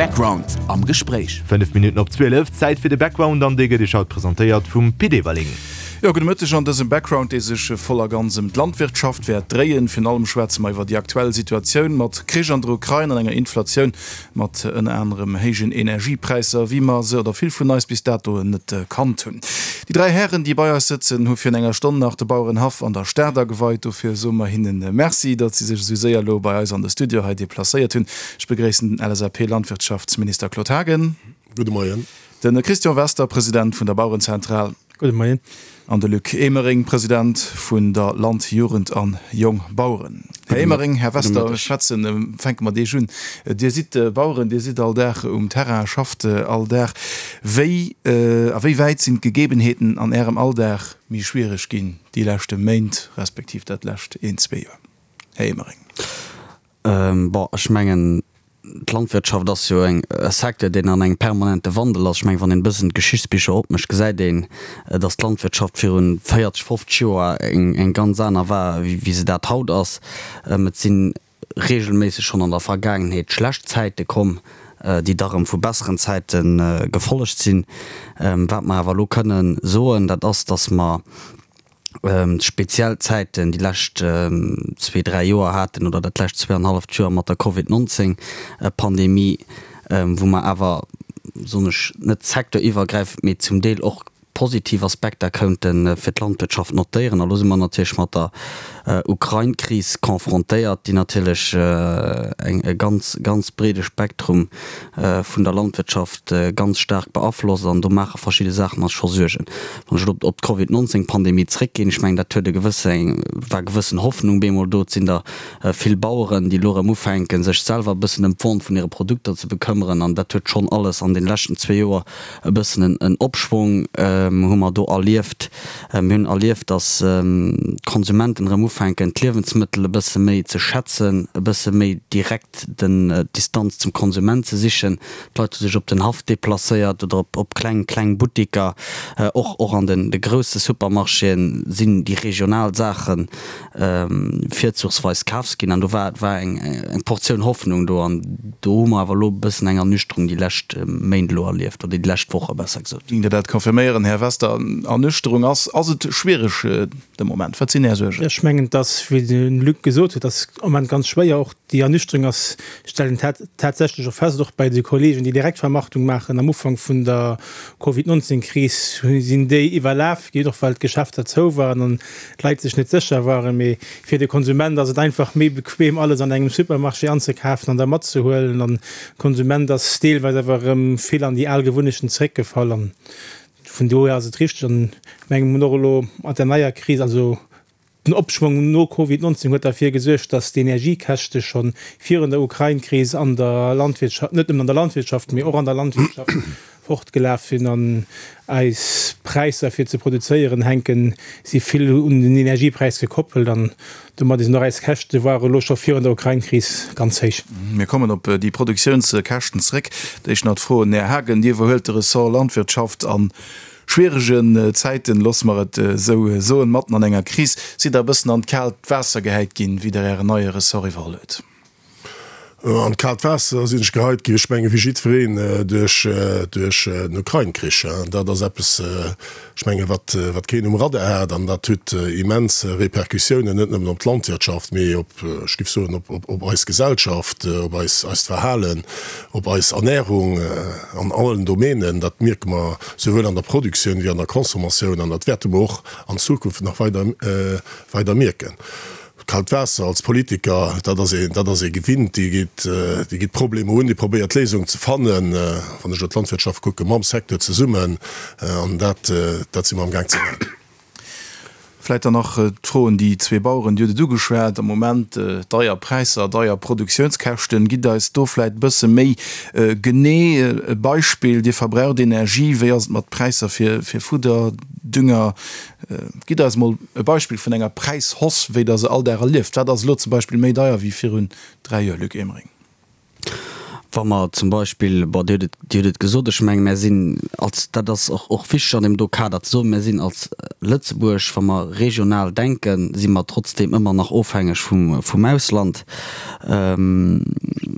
Background am Gespréich. 5 Minutten op 12, Zäit fir de Background an dee gëtt Iech haut presentéiert vum Pit Everling. Jo, gudde Mëtteg an dësem Background, dee sech voll a ganz ëm d'Landwirtschaft wäert dréien. Virun allem schwätze mer iwwer déi aktuell Situatioun mat Krich an der Ukrain an enger Inflatioun mat ënner anerem héijen Energiepräisser, wéi mer se, oder vill vun eis, bis dato net kannt hunn. Déi 3 Hären, déi bei eis sëtzen, hu virun enger Stonn nach de Bauerenhaff an der Stad ageweit. Dofir soe mer hinnen Merci, datt si sech esou séier elo bei eis an de Studio hei deplacéiert hunn. Ech begréissen den LSAP-Landwirtschaftsminister Claude Haagen. Gudde Moien. De Christian Wester, President vun der Bauerenzentral. Gudde Moien. An de Luc Emering, President vun der Land-, Jugend an Jongbaueren. Här Emering, Här Wester, ech schwätzen, fänke mat Iech un. Dir sidd Baueren, Dir sidd all Dag um Terrain, schafft all Dag. Wéi, a wéi wäit sinn d'Gegebenheeten an Ärem Alldag méi schwiereg ginn déi leschte Méint, respektiv dat lescht een, zwee Joer? Här Emering. Bon, ech mengen, d'Landwirtschaft ass jo e Secteur, deen an engem permanente Wandel ass. Ech mengen, wann een e bëssen d'Geschichtsbicher opmécht, gesäit een, datt d'Landwirtschaft viru 40, 50 Joer eng ganz aner war, wéi se dat haut ass. Et si reegelméisseg schonn an der Vergaangenheet schlecht Zäite komm, déi da rëm vu besseren Zäite gefollegt sinn. Wat mer awer elo kënnen soen, dat ass, datt mer, speziell Zäiten déi lescht zwee, dräi Joer haten oder dat lescht zweeanhalleft Joer mat der Covid 19 Pandemie, wou mer awer, soen ech, net secteuriwwergräifend, mee zum Deel och positiv Aspekter kounte fir d'Landwirtschaft notéieren. A lo si mer natierlech mat der Ukrain-Kris confrontéiert, déi natierlech eng e ganz, ganz breede Spektrum vun der Landwirtschaft ganz staark beaflosst an do maache verschidde Saachen eis scho Suergen. Wann ech elo op d'Covid 19 Pandemie zréckginn, ech mengen dat huet e gewësse, war gewëssen Hoffnung bemol do. Et sinn der vill Baueren, déi elo erëm ufänken, sech selwer e bëssen ëm d'Vente vun hire Produkter ze bekëmmeren an dat huet schonn alles an deene leschten zwee Joer e bëssen en Opschwong hu mer do erlieft. Mir hunn erlieft, datt d'Konsumenten erëm ufänken, d'Liewensmëttel e bësse méi ze schätzen, e bësse méi direkt den d'Distanz zum Konsument ze sichen. D'Leit hu sech op den Haff deplacéiert oder op op kleng kleng Buttiker. Och och an den de grousse Supermarchéen sinn déi regional Saache virzuchsweis kafs ginn. An do war war eng eng Portioun Hoffnung do. An do hu mer awer elo e bëssen eng Ernüchterung déi lescht Méint elo erlieft, oder déi lescht Woche besser gesot. Géingt Dir dat confirméieren, Här Wester? Ernüchterung ass ass et schwiereg de Moment? Wat sinn Är Suergen? Ech mengen, dass, wéi de Luc gesot huet, ass am Moment ganz schwéier och Déi Ernüchterung ass, stellen tatsächlech och fest, och bei de Kollegen, déi Direktvermarktung maachen, am Ufank vun der Covid 19 Kris sinn déi iwwerlaf ginn, och well d'Geschäfter zou waren an d'Leit sech net sécher waren. Mee fir de Konsument ass et einfach méi bequem, alles an engem Supermarché anzekafen an da matzehuelen. An de Konsument ass deelweis awer erëm vill an déi al Gewunnechten zeréckgefall. An vun dohier ass et richteg an mengem hunn och elo mat der neier Kris, also Den Opschwong no Covid 19 huet derfir gesuergt, datt d'Energiekäschte scho virun der Ukrain-Kris an der Landwirtschaft, net nëmmen an der Landwirtschaft, mee och an der Landwirtschaft fortgelaf sinn. An eis Präisser fir ze produzéieren hänken si vill un den Energiepräis gekoppelt an domat sinn och eis Käschte ware elo scho virun der Ukrain-Kris ganz héich. Mir kommen op déi Produktiounskäschten zeréck. D'éischt nach d'Fro un Här Haagen, Dir iwwerhuelt de Ressort Landwirtschaft an Schwieregen Zäiten, loosse mer et esou soen, matten an enger Kris, sidd Der e bëssen an d'kaalt Waasser gehäit ginn, wéi Der Ären neie Ressort iwwerholl huet? An d'kaalt Waasser sinn ech geheit ginn, ech menge wéi jiddwereen, duerch den Ukrain-Krich. Dat ass eppes, ech menge wat keen um Radar hat an dat huet immens Repercussiounen, net nëmmen op d'Landwirtschaft, mee op, ech géif soen, op eis Gesellschaft, op eist Verhalen, op eis Ernährung an allen Domänen. Dat mierke mer souwuel an der Produktioun wéi an der Consommatioun, an dat wäerte mer och an Zukunft nach weider, weider mierken. Kalt Waasser als Politiker, dat ass ee, dat ass ee gewinnt, dee geet, dee geet d'Problemer un, dee probéiert Léisungen ze fannen, wann ech elo d'Landwirtschaft kucken, mam Secteur zesummen, an dat, dat si mer amgaang ze maachen. Vläit dann nach d'Fro un déi zwee Baueren, Dir hutt et ugeschwat, am Moment deier Präisser, deier Produktiounskäschten. Gitt eis do vläit e bësse méi genee e Beispill. Dir verbraucht Energie, wéi ass et mat Präisser fir Fudder, Dünger? Gitt eis emol e Beispill vun enger Präishausse, wéi Der se all Dag erlieft. Wat ass elo zum Beispill méi deier wéi virun dräi Joer, Luc Emering? Wa mer zum Beispill, bon, Dir hutt et, Dir hutt et gesot, ech menge mär sinn als, dat ass och, och wichteg an deem do Kader ze soen, mär sinn als Lëtzebuerg, wa mer regional denken, si mer trotzdeem ëmmer nach ofhängeg vum, vum Ausland.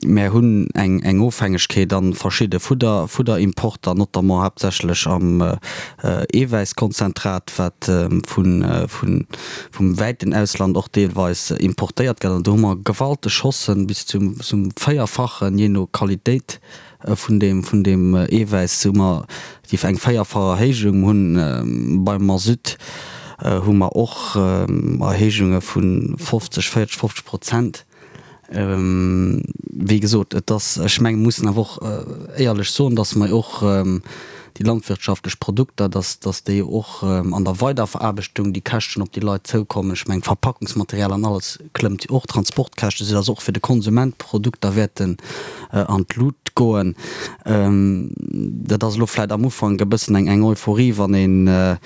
Mär hunn eng Ofhängegkeet a verschidde Fudder, Fudderimporter, notamment haaptsächlech am Eewäisskonzentrat, wat vum wäiten Ausland och deelweis importéiert gëtt. An do hu mer gewalteg Haussen, bis zum Véierfachen, jee no Qualitéit vun deem Eewäiss, hu mer déi eng véierfach Erhéijung. Hunn beim Masutt hu mer och Erhéijunge vu 50, 40, 50 Prozent. Wéi gesot, et ass, ech mengen, mir mussen awer och éierlech soen, dass mer och déi landwirtschaftlech Produkter, dass, dass déi och an der Weiderveraarbechtung déi Käschten op déi Leit zoukommen. Ech mengen, d'Verpackungsmaterial an alles klëmmt jo och, d'Transportkäschte, soudass och fir de Konsument d'Produkter wäerten an d'Lut goen. Dat ass elo vläicht am Ufank e bëssen eng, eng Euphorie, wann ee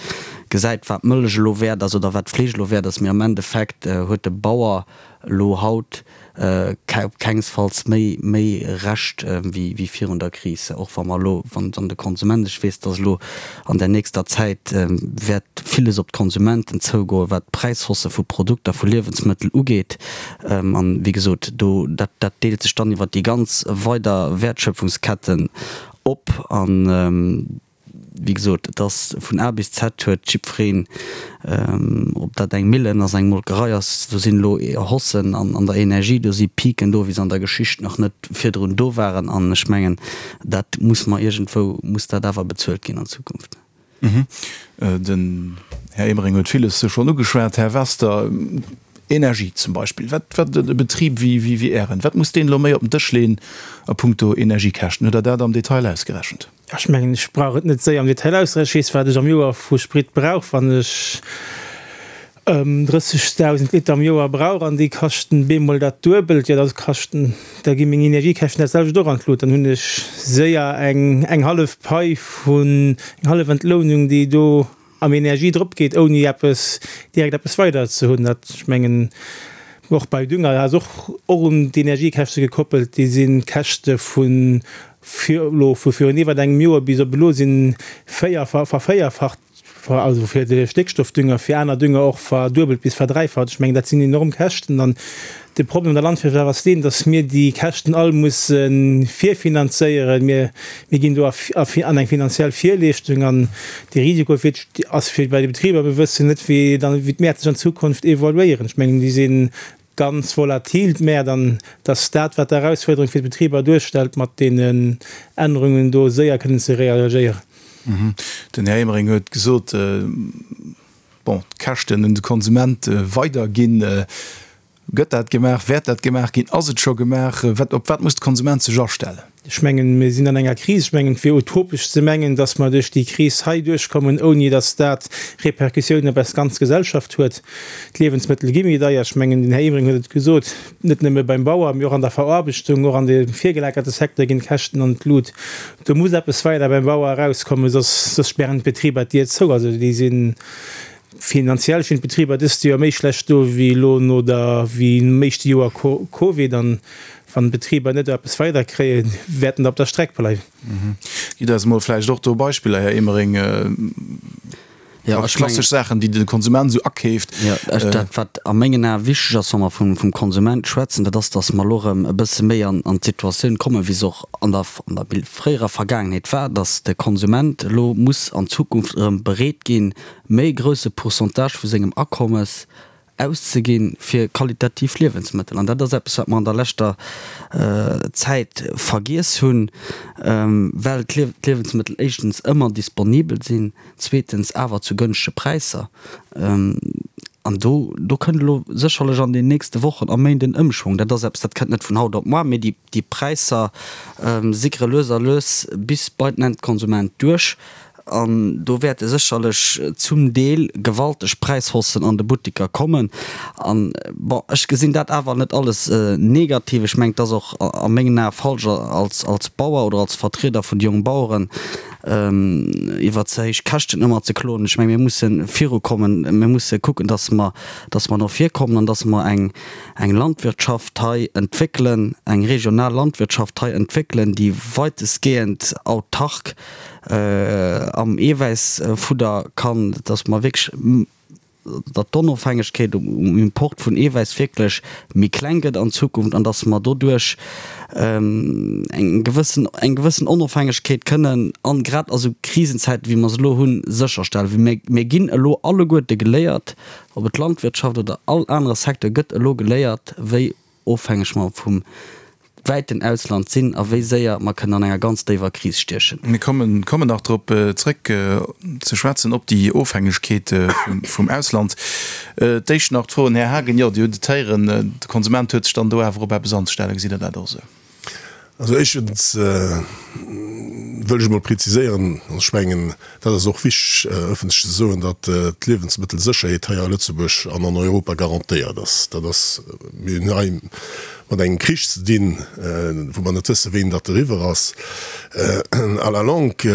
gesäit, wat d'Mëllech elo wäert ass oder wat d'Fleesch elo wäert ass, mee am Endeffekt huet de Bauer elo haut op kengsfalls méi méi Recht wéi wéi virun der Kris, och wa mer elo, wann wann de Konsument, ech weess, dass elo an der nächster Zäit wäert villes op d'Konsumenten zougoen, wat d'Präishausse vu Produkter, vu Liewensmëttel ugeet. An, wéi gesot, do dat dat deelt sech dann iwwert déi ganz weider Wäertschöpfungsketten op an, Wéi gesot, et ass vun A bis Z huet jiddwereen, ob dat eng Millen ass, eng Molkerei ass, do sinn elo Haussen an der Energie, do si Piken do, wéi se an der Geschicht nach net virdrun do waren. An ech mengen, dat muss mer iergendwou, muss dat awer bezuelt ginn an Zukunft. Den Här Emering huet villes schonn ugeschwat. Här Wester, Energie zum Beispill, wat, wat e Betrib wéi, wéi Ären, wat muss deen elo méi op den Dësch leeën a puncto Energiekäschten? Hutt Der dat am Detail ausgerechent? Ech mengen, ech brauch et net séier am Detail auszerechnen. Ech weess, wat ech am Joer vu Sprit brauch, wann ech 30.000 Liter am Joer brauch an déi kaschten bemol dat Duebelt, jo da kaschten, da gi meng Energiekäschten dat selwecht och an d'Lut. Dann hunn ech séier eng eng hallef Pai vun, eng hallef Entlounung, déi do am Energie drop geet, ouni eppes direkt eppes weider ze hunn. Dat, ech mengen, och bei Dünger ass och och un d'Energiekäschte gekoppelt. Déi sinn d'Käschte vu fir elo vu virun iwwert engem Joer bis op elo sinn véier vervéierfacht, also fir de Stéckstoffdünger, fir aner Dünger och verduebelt bis verdräifacht. Ech mengen, dat sinn enorm Käschten. An De Problem an der Landwirtschaft ass deen, datt mir déi Käschten all musse virfinanzéieren. Mir ginn do an eng finanziell Virleeschtung an de Risiko fir ass fir bei de Betriber. Mir wëssen net, wéi dann wéi d'Mäert sech an Zukunft evoluéieren. Ech mengen, déi si ganz volatil, d'Mäert, an datt dat, wat d'Erausfuerderung fir d'Betriber duerstellt, mat deenen Ännerungen do séier kënnen ze reagéieren. Den Här Emering huet gesot, bon, d'Käschten un de Konsument weiderginn. Gëtt dat gemaach? Wäert dat gemaach ginn? Ass et scho gemaach? Wat, op wat muss de Konsument sech astellen? Ech mengen, mir sinn an enger Kris. Ech mengen, et wier utopesch ze mengen, datt mer duerch déi Kris hei duerchkommen, ouni datt dat Répercussiounen op eis ganz Gesellschaft huet. D'Liewensmëttel gi méi deier. Ech mengen, den Här Emering huet et gesot, net nëmme beim Bauer, mee och an der Veraarbechtung, och an dem virgelagerte Secteur ginn d'Käschten an d'Lut. Do muss eppes weider beim Bauer erauskommen, soss, soss spären d'Betriber d'Dier zou. Also déi sinn Finanziell stinn d'Betriber dëst Joer méi schlecht do wéi elo no der wéi nom éischte Joer Covid. An wann d'Betriber net eppes weider kréien, wäerten der op der Streck bleiwen. Gitt eis emol vläicht och do Beispiller, Här Emering, klassesch Saachen, déi de Konsument esou akeeft. Jo, dat wat a mengen Ae wichteg ass, wa mer vum Konsument schwätzen, dat ass, datt mer elo erëm e bësse méi an d'Situatioun kommen, wéi se och an der fréierer Vergaangenheet war, datt de Konsument elo muss an Zukunft erëm bereet ginn, méi grousse Pourcentage vu sengem Akommes auszeginn fir qualitativ Liewensmëttel. An dat ass eppes, wat mer an der leschter Zäit vergiess hunn, well d'Liewensmëttel éischtens ëmmer disponibel sinn, zweetens awer zu gënschtege Präisser. An do, do kënnt elo sécherlech an den nächste Wochen a Méint en Ëmschwong. Dat ass eppes, dat kënnt net vun haut op moar, mee déi, déi Präisser sickere lues a lues bis bei den Endkonsument duerch. An do wäerte sécherlech zum Deel gewalteg Präishaussen an de Buttiker kommen. An, bon, ech gesinn dat awer net alles negativ. Ech mengen, et ass och a mengen Ae falsch, als, als Bauer oder als Vertrieder vun de Jongbaueren iwwer ze héich Käschten ëmmer ze kloen. Ech mengen, mir musse virukommen. Mir musse kucken, dass mer, dass mer no vir kommen an dass mer eng, eng Landwirtschaft hei entwéckelen, eng regional Landwirtschaft hei entwéckelen, déi weitestgehend autark am Eewäissfudder kann, dass mer wierklech. datt d'Onofhängegkeet um Import vun Eewäiss wierklech méi kleng gëtt an Zukunft an datt mer doduerch eng gewëssen, eng gewëssen Onofhängegkeet kënnen an grad a sou Krisenzäiten, wéi mer se elo hunn, sécherstellen. Well mir, mir ginn elo alleguerte geléiert, ob et d'Landwirtschaft oder all anere Secteur gëtt elo geléiert, wéi ofhängeg mer vum wäiten Ausland sinn a wéi séier mer kënnen an enger ganz déiwer Kris stiechen. Mir kommen kommen nach drop zréck ze schwätzen, op déi Ofhängegkeet vum Ausland. D'éischt nach d'Fro un Här Haagen, Jo, Dir hutt et héieren, de Konsument huet sech dann do awer op eppes anzestellen. Gesitt Der dat och esou? Also éischtens wëll ech emol preziséieren, an ech mengen, dat ass och wichteg ëffentlech ze soen, datt d'Liewensmëttelsécherheet hei a Lëtzebuerg an an Europa garantéiert ass. Dat ass, mir hunn hei mat engem Krich ze dinn, wou mer net wëssen, wéini datt eriwwer ass. À la longue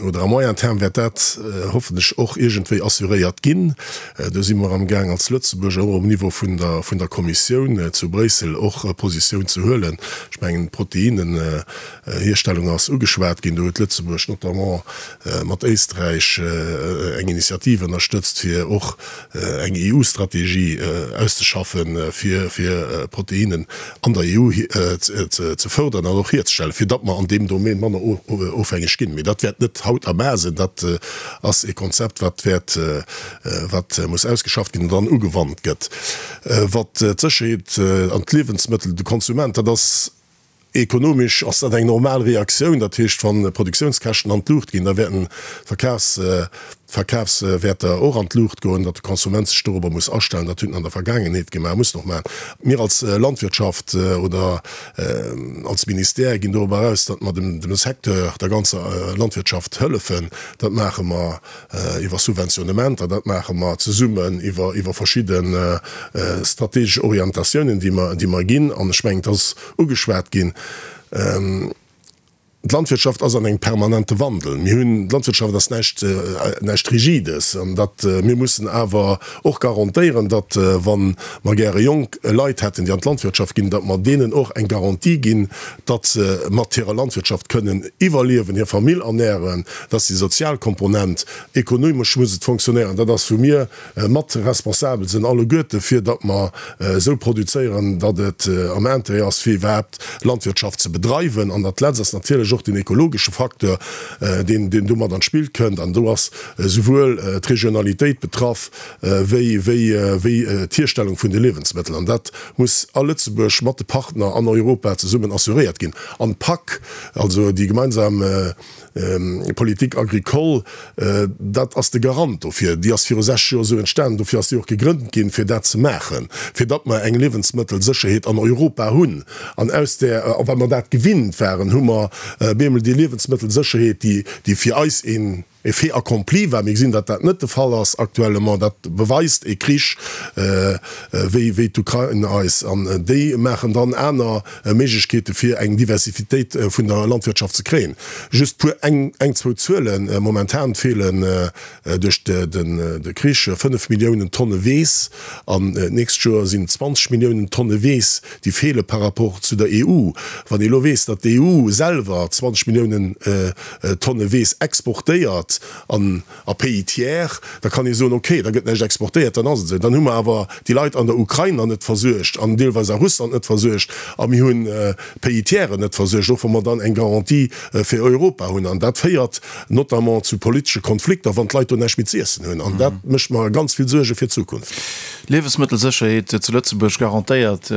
oder à moyen terme wäert dat hoffentlech och iergendwéi assuréiert ginn. Do si mer amgaang als Lëtzebuerg och um Niveau vun der, vun der Kommissioun zu Bréissel och Positioun ze huelen. Ech mengen, d'Proteinnenhierstellung ass ugeschwat ginn. Do huet Lëtzebuerg notamment mat Éisträich eng Initiativ ënnerstëtzt, fir och eng EU-Strategie auszeschaffen, fir, fir Proteinnen an der EU ze fërderen an och hierzestellen, fir datt mer an deem Domaine manner ofhängeg ginn. Mee dat wäert net haut a mar sinn. Dat ass e Konzept, wat wäert, wat muss ausgeschafft ginn an dann ugewannt gëtt. Wat d'Sécherheet an d'Liewensmëttel, de Konsument, dat ass ekonomesch ass dat eng normal Reaktioun. Dat heescht, wa Produktiounskäschten an d'Luucht ginn, da wäerten d'Verkafs, d'Verkafswäerter och an d'Luucht goen, datt de Konsument sech dorobber muss astellen. Dat huet en an der Vergaangenheet gemaach, muss en och maachen. Mir als Landwirtschaft oder als Ministère ginn dorobber eraus, datt mer dem Secteur, der ganzer Landwirtschaft hëllefen. Dat maache mer iwwer Subventionnementer, dat maache mer zesummen iwwer iwwer verschidde strategesch Orientatiounen, déi mer, déi mer ginn. An ech mengen, et ass ugeschwat ginn, D'Landwirtschaft ass an engem permanente Wandel. Mir hunn, d'Landwirtschaft ass näischt, näischt Rigides. An datt, mir mussen awer och garantéieren, datt, wa mer gäre jonk Leit hätten, déi an d'Landwirtschaft ginn, datt mer deenen och eng Garantie ginn, datt se mat hirer Landwirtschaft kënnen iwwerliewen, hir Famill ernären. Dat ass déi sozial Komponent. Ekonomesch muss et fonctionnéieren. Dat ass, wou mir mat responsabel sinn alleguerte fir datt mer esou produzéieren, datt et am Intérêt ass fir iwwerhaapt Landwirtschaft ze bedreiwen. An dat Letzt ass natierlech och den ekologesche Facteur, deen deen do mat an d'Spill kënnt. An do ass esouwuel d'Regionalitéit betraff wéi wéi wéi d'Hierstellung vun de Liewensmëttel. An dat muss a Lëtzebuerg mat de Partner an Europa zesummen assuréiert ginn. An d'PAC, also déi gemeinsam Politique agricole, dat ass de Garant dofir. Déi ass viru 60 Joer esou entstanen, dofir ass déi och gegrënnt ginn, fir dat ze maachen, fir datt mer eng Liewensmëttelsécherheet an Europa hunn. An aus där, a well mer dat gewinnt waren, hu mer bemol déi Liewensmëttelsécherheet, déi, déi fir eis een e Fait accompli war. Mir gesinn, datt dat net de Fall ass actuellement. Dat beweist e Krich wéi, wéi d'Ukrain eis. An déi maachen dann aner Méiglechkeete fir eng Diversifitéit vun der Landwirtschaft ze kréien. Just puer, eng, eng zwou Zuelen, Momentan feelen duerch de Krich 5 Milliounen Tonne Weess an d'nächst Joer sinn et 20 Milliounen Tonne Weess, déi feele par rapport zu der EU. Wann ee elo weess, datt d'EU selwer 20 Milliounen Tonne Weess exportéiert an a Pays tiers, da kann ee soen, okay, da gëtt näischt exportéiert, dann ass et esou. Dann hu mer awer déi Leit an der Ukrain nach net versuergt an deelweis a Russland net versuergt a mir hunn d'Pays tiersen net versuergt, och wa mer dann eng Garantie fir Europa hunn. An dat féiert notamment zu politesche Konflikter, wann d'Leit do näischt méi z'iessen hunn. An dat mécht mer ganz vill Suerge fir d'Zukunft. Liewesmëttelsécherheet zu Lëtzebuerg garantéiert,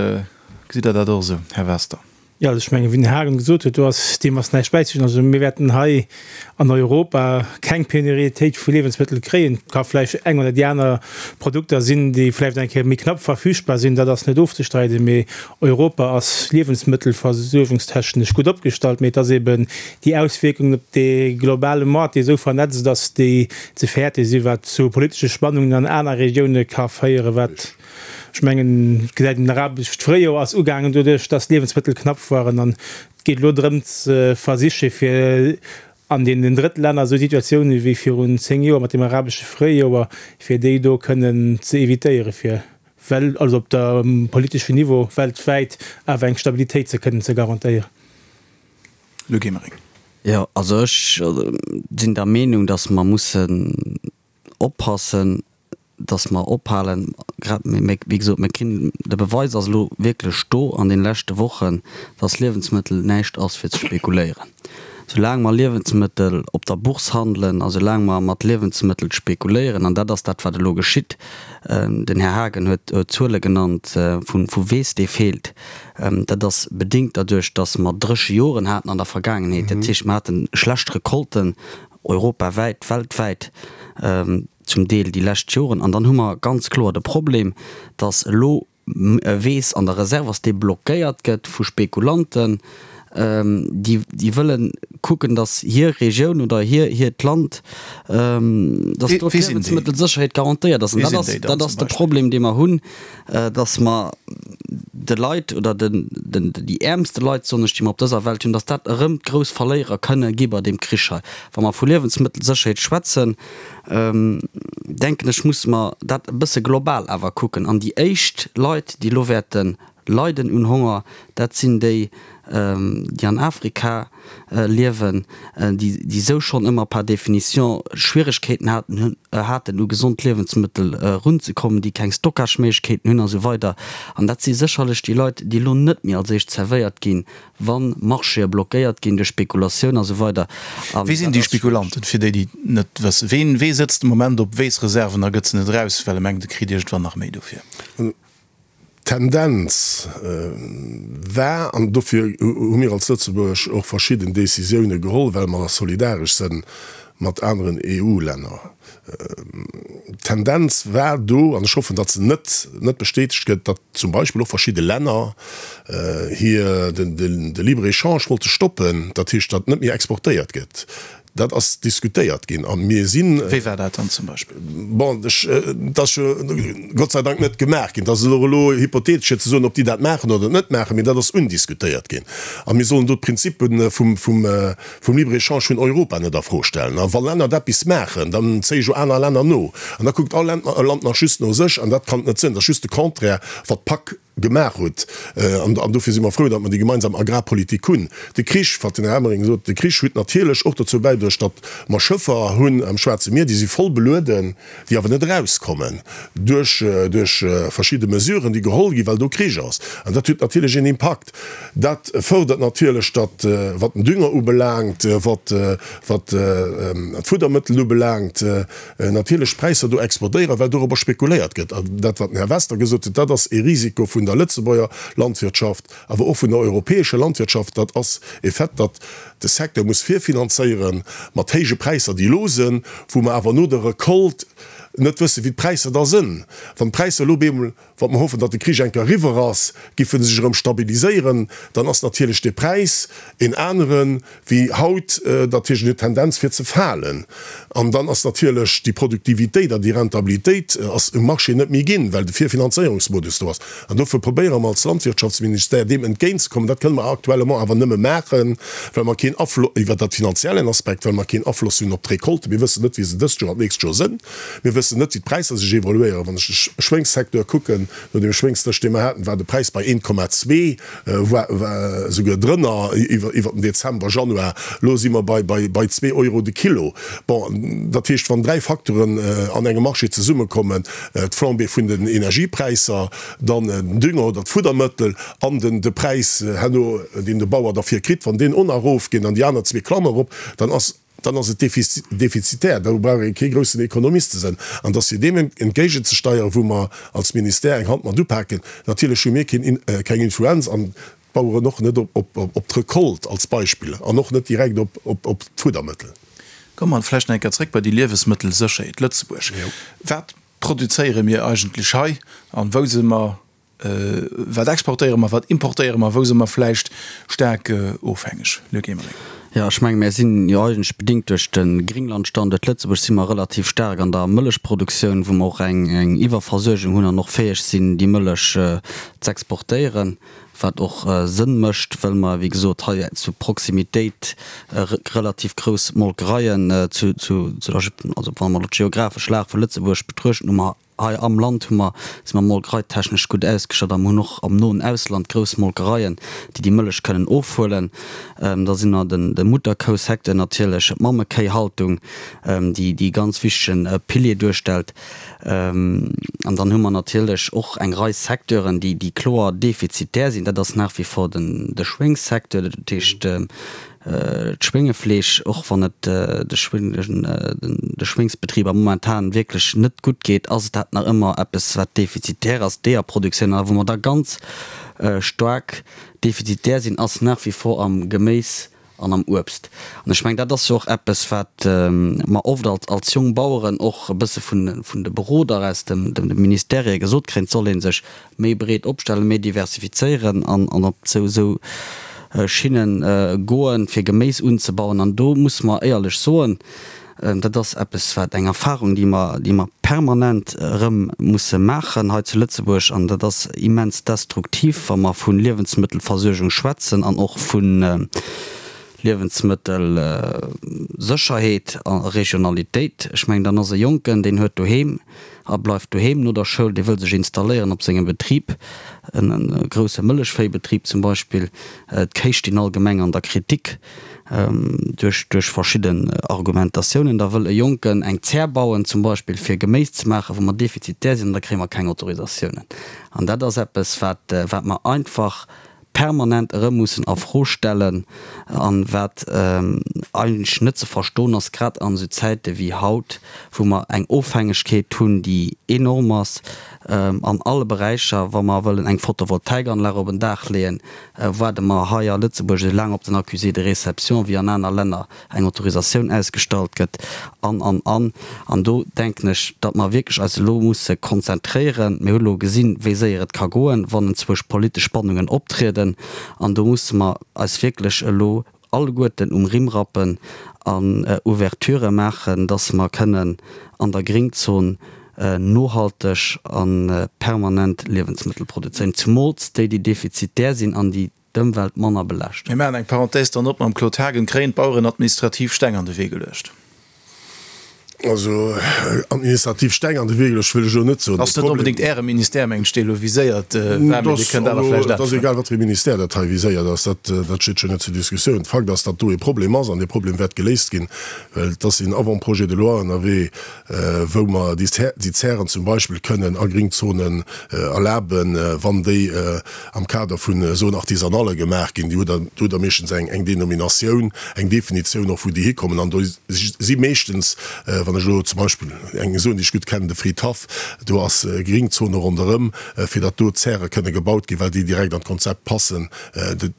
gesitt Der dat och esou, Här Wester? Jo, also ech mengen, wéi den Här Haagen gesot huet, do ass, deem ass näischt bäizestinn. Also mir wäerten hei an Europa keng Pénuriétéit vu Liewensmëttel kréien. Et ka vläicht eng oder déi aner Produkter sinn, déi vläicht eng Kéier méi knapp verfügbar sinn, dat ass net ofzestreiden. Mee Europa ass liewensmëttelversuergungstechnesch gutt opgestallt. Mee et ass eben déi Auswierkungen op dee globale Moart, dee esou vernetzt ass, déi ze fäerte sinn, wat zu politesche Spannungen an aner Regioune ka féieren, wat, Ech mengen, et gesäit een, den arabescht Fréijoer ass ugaangen doduerch, datt d'Liewensmëttel knapp waren. An et geet elo drëm ze versiche fir an deenen Drëttlänner esou Situatiounen wéi virun 10 Joer mat dem arabesche Fréijoer, fir déi do kënnen ze evitéieren, fir well, also op der politeschen Niveau weltwäit awer eng Stabilitéit ze kënnen ze garantéieren. Luc Emering. Jo, also ech sinn der Meenung, datt mer mussen oppassen. Dass mer ophalen, grad, wéi gesot, mir kinn, de Beweis ass elo wierklech do an deene leschte Wochen, dass Liewensmëttel näischt ass fir ze spekuléieren. Soulaang mer Liewensmëttel op der Bourse handelen a soulaang mer mat Liewensmëttel spekuléieren, an dat ass dat, wat elo geschitt, den Här Haagen huet Zuele genannt vu Weess, dee feelt, dat ass bedéngt derduerch, dass mer dréche Joren haten an der Vergaangenheet, dat heescht, mer hate schlecht Recolten europawäit, weltwäit. zum Deel déi lescht Joren. An dann hu mer ganz kloer de Problem, dass elo Weess an der Reserve ass, dee blockéiert gëtt vu Spekulanten, déi déi wëlle kucken, dass hir Regioun oder hir hiert Land, dass do d'Liewensmëttelsécherheet garantéiert ass. An dat ass dat ass de Problem, dee mer hunn, dass mer de Leit oder den den déi äermste Leit, soen ech, déi mer op dëser Welt hunn, dass dat erëm d'grouss Verléierer kënne gi bei deem Krich hei. Wa mer vu Liewensmëttelsécherheet schwätzen, denken ech, musse mer dat e bësse global awer kucken. An déi éischt Leit, déi elo wäerte leiden un Honger, dat sinn déi, déi an Afrika liewen, déi esou schonn ëmmer par définition Schwieregkeeten haten, haten u gesond Liewensmëttel erunzekommen, déi keng Stockageméiglechkeeten hunn a sou weider. An dat si sécherlech déi Leit, déi elo net méi als éischt zerwéiert ginn, Wann Marchéë blockéiert ginn duerch Spekulatioun a sou weider. An Wie sinn dat déi ass schwiereg. Spekulanten, fir déi, déi et net wëssen? Ween, wee sëtzt de Moment op Weessreserven a gëtt se net eraus, well e mengt, e kritt iergendwann nach méi dofir? D'Tendenz war, an dofir hu mir als Lëtzebuerg och verschidden Décisioune geholl, well mer solidaresch sënn mat aneren EU-Länner, D'Tendenz war do, an ech hoffen, datt se net net bestätegt gëtt, datt zum Beispill och verschidde Länner hir de Libre-échange wollte stoppen, dat heescht, datt net méi exportéiert gëtt. Dat ass diskutéiert ginn a mir sinn. Wéi war dat dann zum Beispill? Bon, ech, dat ass jo Gott sei Dank net gemaach ginn. Dat ass elo elo hypothetesch fir ze soen, ob déi dat maachen oder net maachen, mee dat ass undiskutéiert ginn. A mir sollen do d'Prinzippe vum vum vum Libre-échange vun Europa net a Fro stellen. A wa Länner eppes maachen, dann zéie jo aner Länner no. An da kuckt all Land nach just no sech. An dat kann et net sinn. Dat ass just de Contraire, wat d'PAC gemaach huet. An dofir si mer frou, datt mer déi gemeinsam Agrarpolitik hunn. De Krich, wat den Här Emering sot, de Krich huet natierlech och dozou bäidruecht, datt mer Schëffer hunn am Schwaarze Mier, déi si voll belueden, déi awer net erauskommen duerch duerch verschidde Mesuren, déi geholl ginn, well do Krich ass. An dat huet natierlech een Impakt. Dat fërdert natierlech, datt, wat den Dünger ubelaangt, wat wat d'Fuddermëttel ubelaangt, natierlech d'Präisser do explodéieren, well dorobber spekuléiert gëtt. An dat, wat den Här Wester gesot huet, dat ass ee Risiko vun der Lëtzebuerger Landwirtschaft, awer och vun der europäescher Landwirtschaft. Dat ass e Fait, datt de Secteur muss virfinanzéiere mat héije Präisser, déi elo sënn, wou mer awer no der Recolte net wëssen, wéi d'Präisser da sënn. Wann d'Präisser elo op eemol Wa mer hoffen, datt de Krich eng Kéier eriwwer ass, giffe sech erëm stabiliséieren, dann ass natierlech de Präis en anere wéi haut. Dat heescht, en huet d'Tendenz fir ze falen. An dann ass natierlech déi Produktivitéit an déi Rentabilitéit ass um Marché net méi ginn, well de Virfinanzéierungsmodus do ass. An dofir probéiere mer als Landwirtschaftsministère deem entgéintzekommen. Dat kënne mer actuellement awer nëmme maachen, well mer keen Aflo-, iwwer dat finanziellen Aspekt, well mer keen Afloss hunn op d'Recolte. Mir wëssen net, wéi se dëst Joer an d'nächst Joer sënn. Mir wëssen net, wéi d'Präisser sech evoluéieren. Wann ech de Schwéngssecteur kucken, no deem Schwéngsdësch, dee mer haten, war de Präis bei 1,2, war esouguer drënner iwwer den Dezember, Januar. Elo si mer bei zwee Euro de Kilo. Bon, dat heescht, wann dräi Facteuren an engem Marché zesummekommen, d'Flambée vun den Energiepräisser, dann den Dünger oder d'Fuddermëttel an de Präis herno, deen de Bauer derfir kritt, wann deen och nach erofgeet an déi aner zwee klammen erop, dann ass, dann ass et defizitär, do brauch ee kee groussen Ekonomist ze sënn. An dass fir deem entgéigenzesteieren, wou mer als Ministère eng Hand mat upaken, natierlech hu mir keng Influenz an d'Baueren och net op d'Recolte als Beispill an och net direkt op d'Fuddermëttel. Komme mer vläicht nach eng Kéier zréck bei déi Liewesmëttelsécherheet Lëtzebuerg. Wat produzéiere mir eigentlech hei an wou si mer Wat exportéiere mer, wat importéiere mer, wou si mer vläicht staark ofhängeg? Luc Emering. Jo, ech menge mir sinn jo eigentlech bedingt duerch de Gringlandstanduert Lëtzebuerg si mer relativ staark an der Mëllechproduktioun, wou mer och eng Iwwerversuergung hunn an och fäeg sinn, déi Mëllech z'exportéieren, wat och Sënn mécht, well mer, wéi gesot, hei zu Proximitéit relativ grouss Molkereien zu, also wa mer elo d'geographesch Lag vu Lëtzebuerg betruechten, hu mer. Hei am Land hu mer, si mer molkereitechnesch gutt ausgestatt a mer hunn och am noen Ausland grouss Molkereien, déi déi Mëllech kënnen ofhuelen. Da sinn mer den, de Mutterkousecteur natierlech, d'Mammekéihaltung, déi déi ganz wichtegen Pilier duerstellt. An dann hu mer natierlech och eng Rei Secteuren, déi, déi kloer defizitär sinn. Dat ass nach wie vor den, de Schwéngssecteur, dat heescht, D'Schwéngefleesch, och wann et de Schwéngsbetriber momentan wierklech net gutt geet, ass et dat nach ëmmer eppes, wat defizitär ass. D'Eeërproduktioun, a wou mer da ganz staark defizitär sinn, ass nach wie vor am Geméis an am Uebst. An ech mengen, dat ass jo och eppes, wat mer oft als Jongbaueren och e bësse vun de Beroder aus de Ministèrë gesot kréien, et soll ee sech méi breet opstellen, méi diversifizéieren an op esou Schinne goen, fir Geméis unzebauen. An do musse mer éierlech soen, dat ass eppes, wat eng Erfahrung, déi mer, déi mer permanent erëm musse maachen hei zu Lëtzebuerg, an dat ass immens destruktiv, wa mer vu Liewensmëttelversuergung schwätzen an och vu Liewensmëttelsécherheet a Regionalitéit. Ech mengen, dann ass e Jonken, deen huet doheem a bleift doheem no der Schoul, dee wëll sech installéieren op sengem Betrib, e grousse Mëllechvéibetrib zum Beispill. D'Kéi stinn allgemeng an der Kritik duerch duerch verschidden Argumentatiounen. Da wëll e Jonken eng Zär bauen zum Beispill, fir Geméis ze maachen, wou mer defizitär sinn, an da kréie mer keng Autorisatiounen. An dat ass eppes, wat wat mer einfach permanent erëm mussen a Fro stellen an wat eigentlech net ze verstoen ass, grad an esou Zäite wéi haut, wou mer eng Ofhängegkeet hunn, déi enorm ass an alle Beräicher. Wa mer wëllen eng Photovoltaikanlag op en Daach leeën, waarde mer hei a Lëtzebuerg esou laang op den Accusé de réception wéi an aner Länner eng Autorisatioun ausgestallt gëtt, an, an, an. An do denken ech, datt mer wierklech eis elo musse konzentréieren. Mir hu elo gesinn, wéi séier et ka goen, wann enzwousch politesch Spannungen optrieden. An do musse mer eis wierklech elo alleguerten um Rimm rappen an Ouverturë maachen, datt mer kënnen an der Gringzon nohalteg a permanent Liewensmëttel produzéieren, zumools déi, déi defizitär sinn an déi d'Ëmwelt manner belaaschten. Mir maachen eng Parenthèse dann op mam Claude Haagen. Kréien d'Baueren administrativ Steng an de Wee geluecht? Also administrativ Steng an de Wee geluecht wëll ech elo net soen. Ass net onbedéngt Äre Ministère, mengen ech, dee elo viséiert war, mee Dir kënnt awer vläicht Et ass egal, wat fir ee Ministère dat hei viséiert ass, dat dat steet jo net zur Diskussioun. Fakt ass, datt do ee Problem ass an dee Problem wäert geléist ginn, well et ass een Avant-projet de loi ënnerwee, wou mer déi Zären zum Beispill kënnen a Gringzonen erlaben, wann déi am Kader vun Zone artisanale gemaach ginn. Déi hutt Der, do hutt Der meeschtens eng, eng Denominatioun, eng Definitioun och, wou déi hikommen. An do si meeschtens, wann ech elo zum Beispill eng Zone, déi ech gutt kennen, de Fridhaff, do ass Gringzone ronderëm, fir datt do Zäre kënne gebaut ginn, well déi direkt an d'Konzept passen,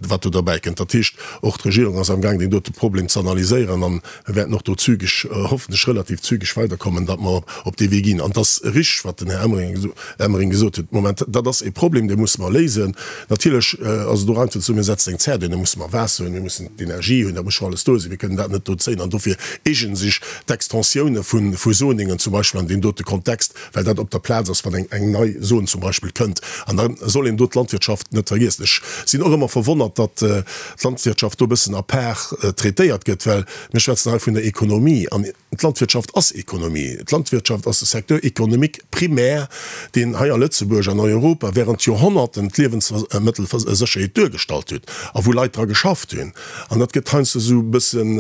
wat do derbäikënnt. Dat heescht, och d'Regierung ass amgaang, deen dote Problem ze analyséieren. An mir wäerten och do zügeg, hoffentlech relativ zügeg weiderkommen, datt mer op dee Wee ginn. An et ass richteg, wat den Här Emering gesot huet, Moment, dat ass e Problem, dee musse mer léisen. Natierlech ass et och einfach ze soen, mir setzen eng Zär duer, da musse mer Waasser hunn, mir mussen d'Energie hunn, dat muss scho alles do sinn. Mir kënnen dat net do zéien. An dofir eegene sech d'Extensioune vu Zoningen zum Beispill an deem dote Kontext, well dat op der Plaz ass, wann eng nei Zon zum Beispill kënnt. An da soll een do d'Landwirtschaft net vergiessen. Ech sinn och ëmmer verwonnert, datt d'Landwirtschaft do e bëssen à part traitéiert gëtt, well mir schwätzen hei vun der Ekonomie an d'Landwirtschaft ass Ekonomie. D'Landwirtschaft ass de Secteur économique primaire, deen hei a Lëtzebuerg an Europa während Joerhonnerten d'Liewensmëttelsécherheet duergestallt huet a wou Leit dra geschafft hunn. An dat gëtt heiansdo esou e bëssen,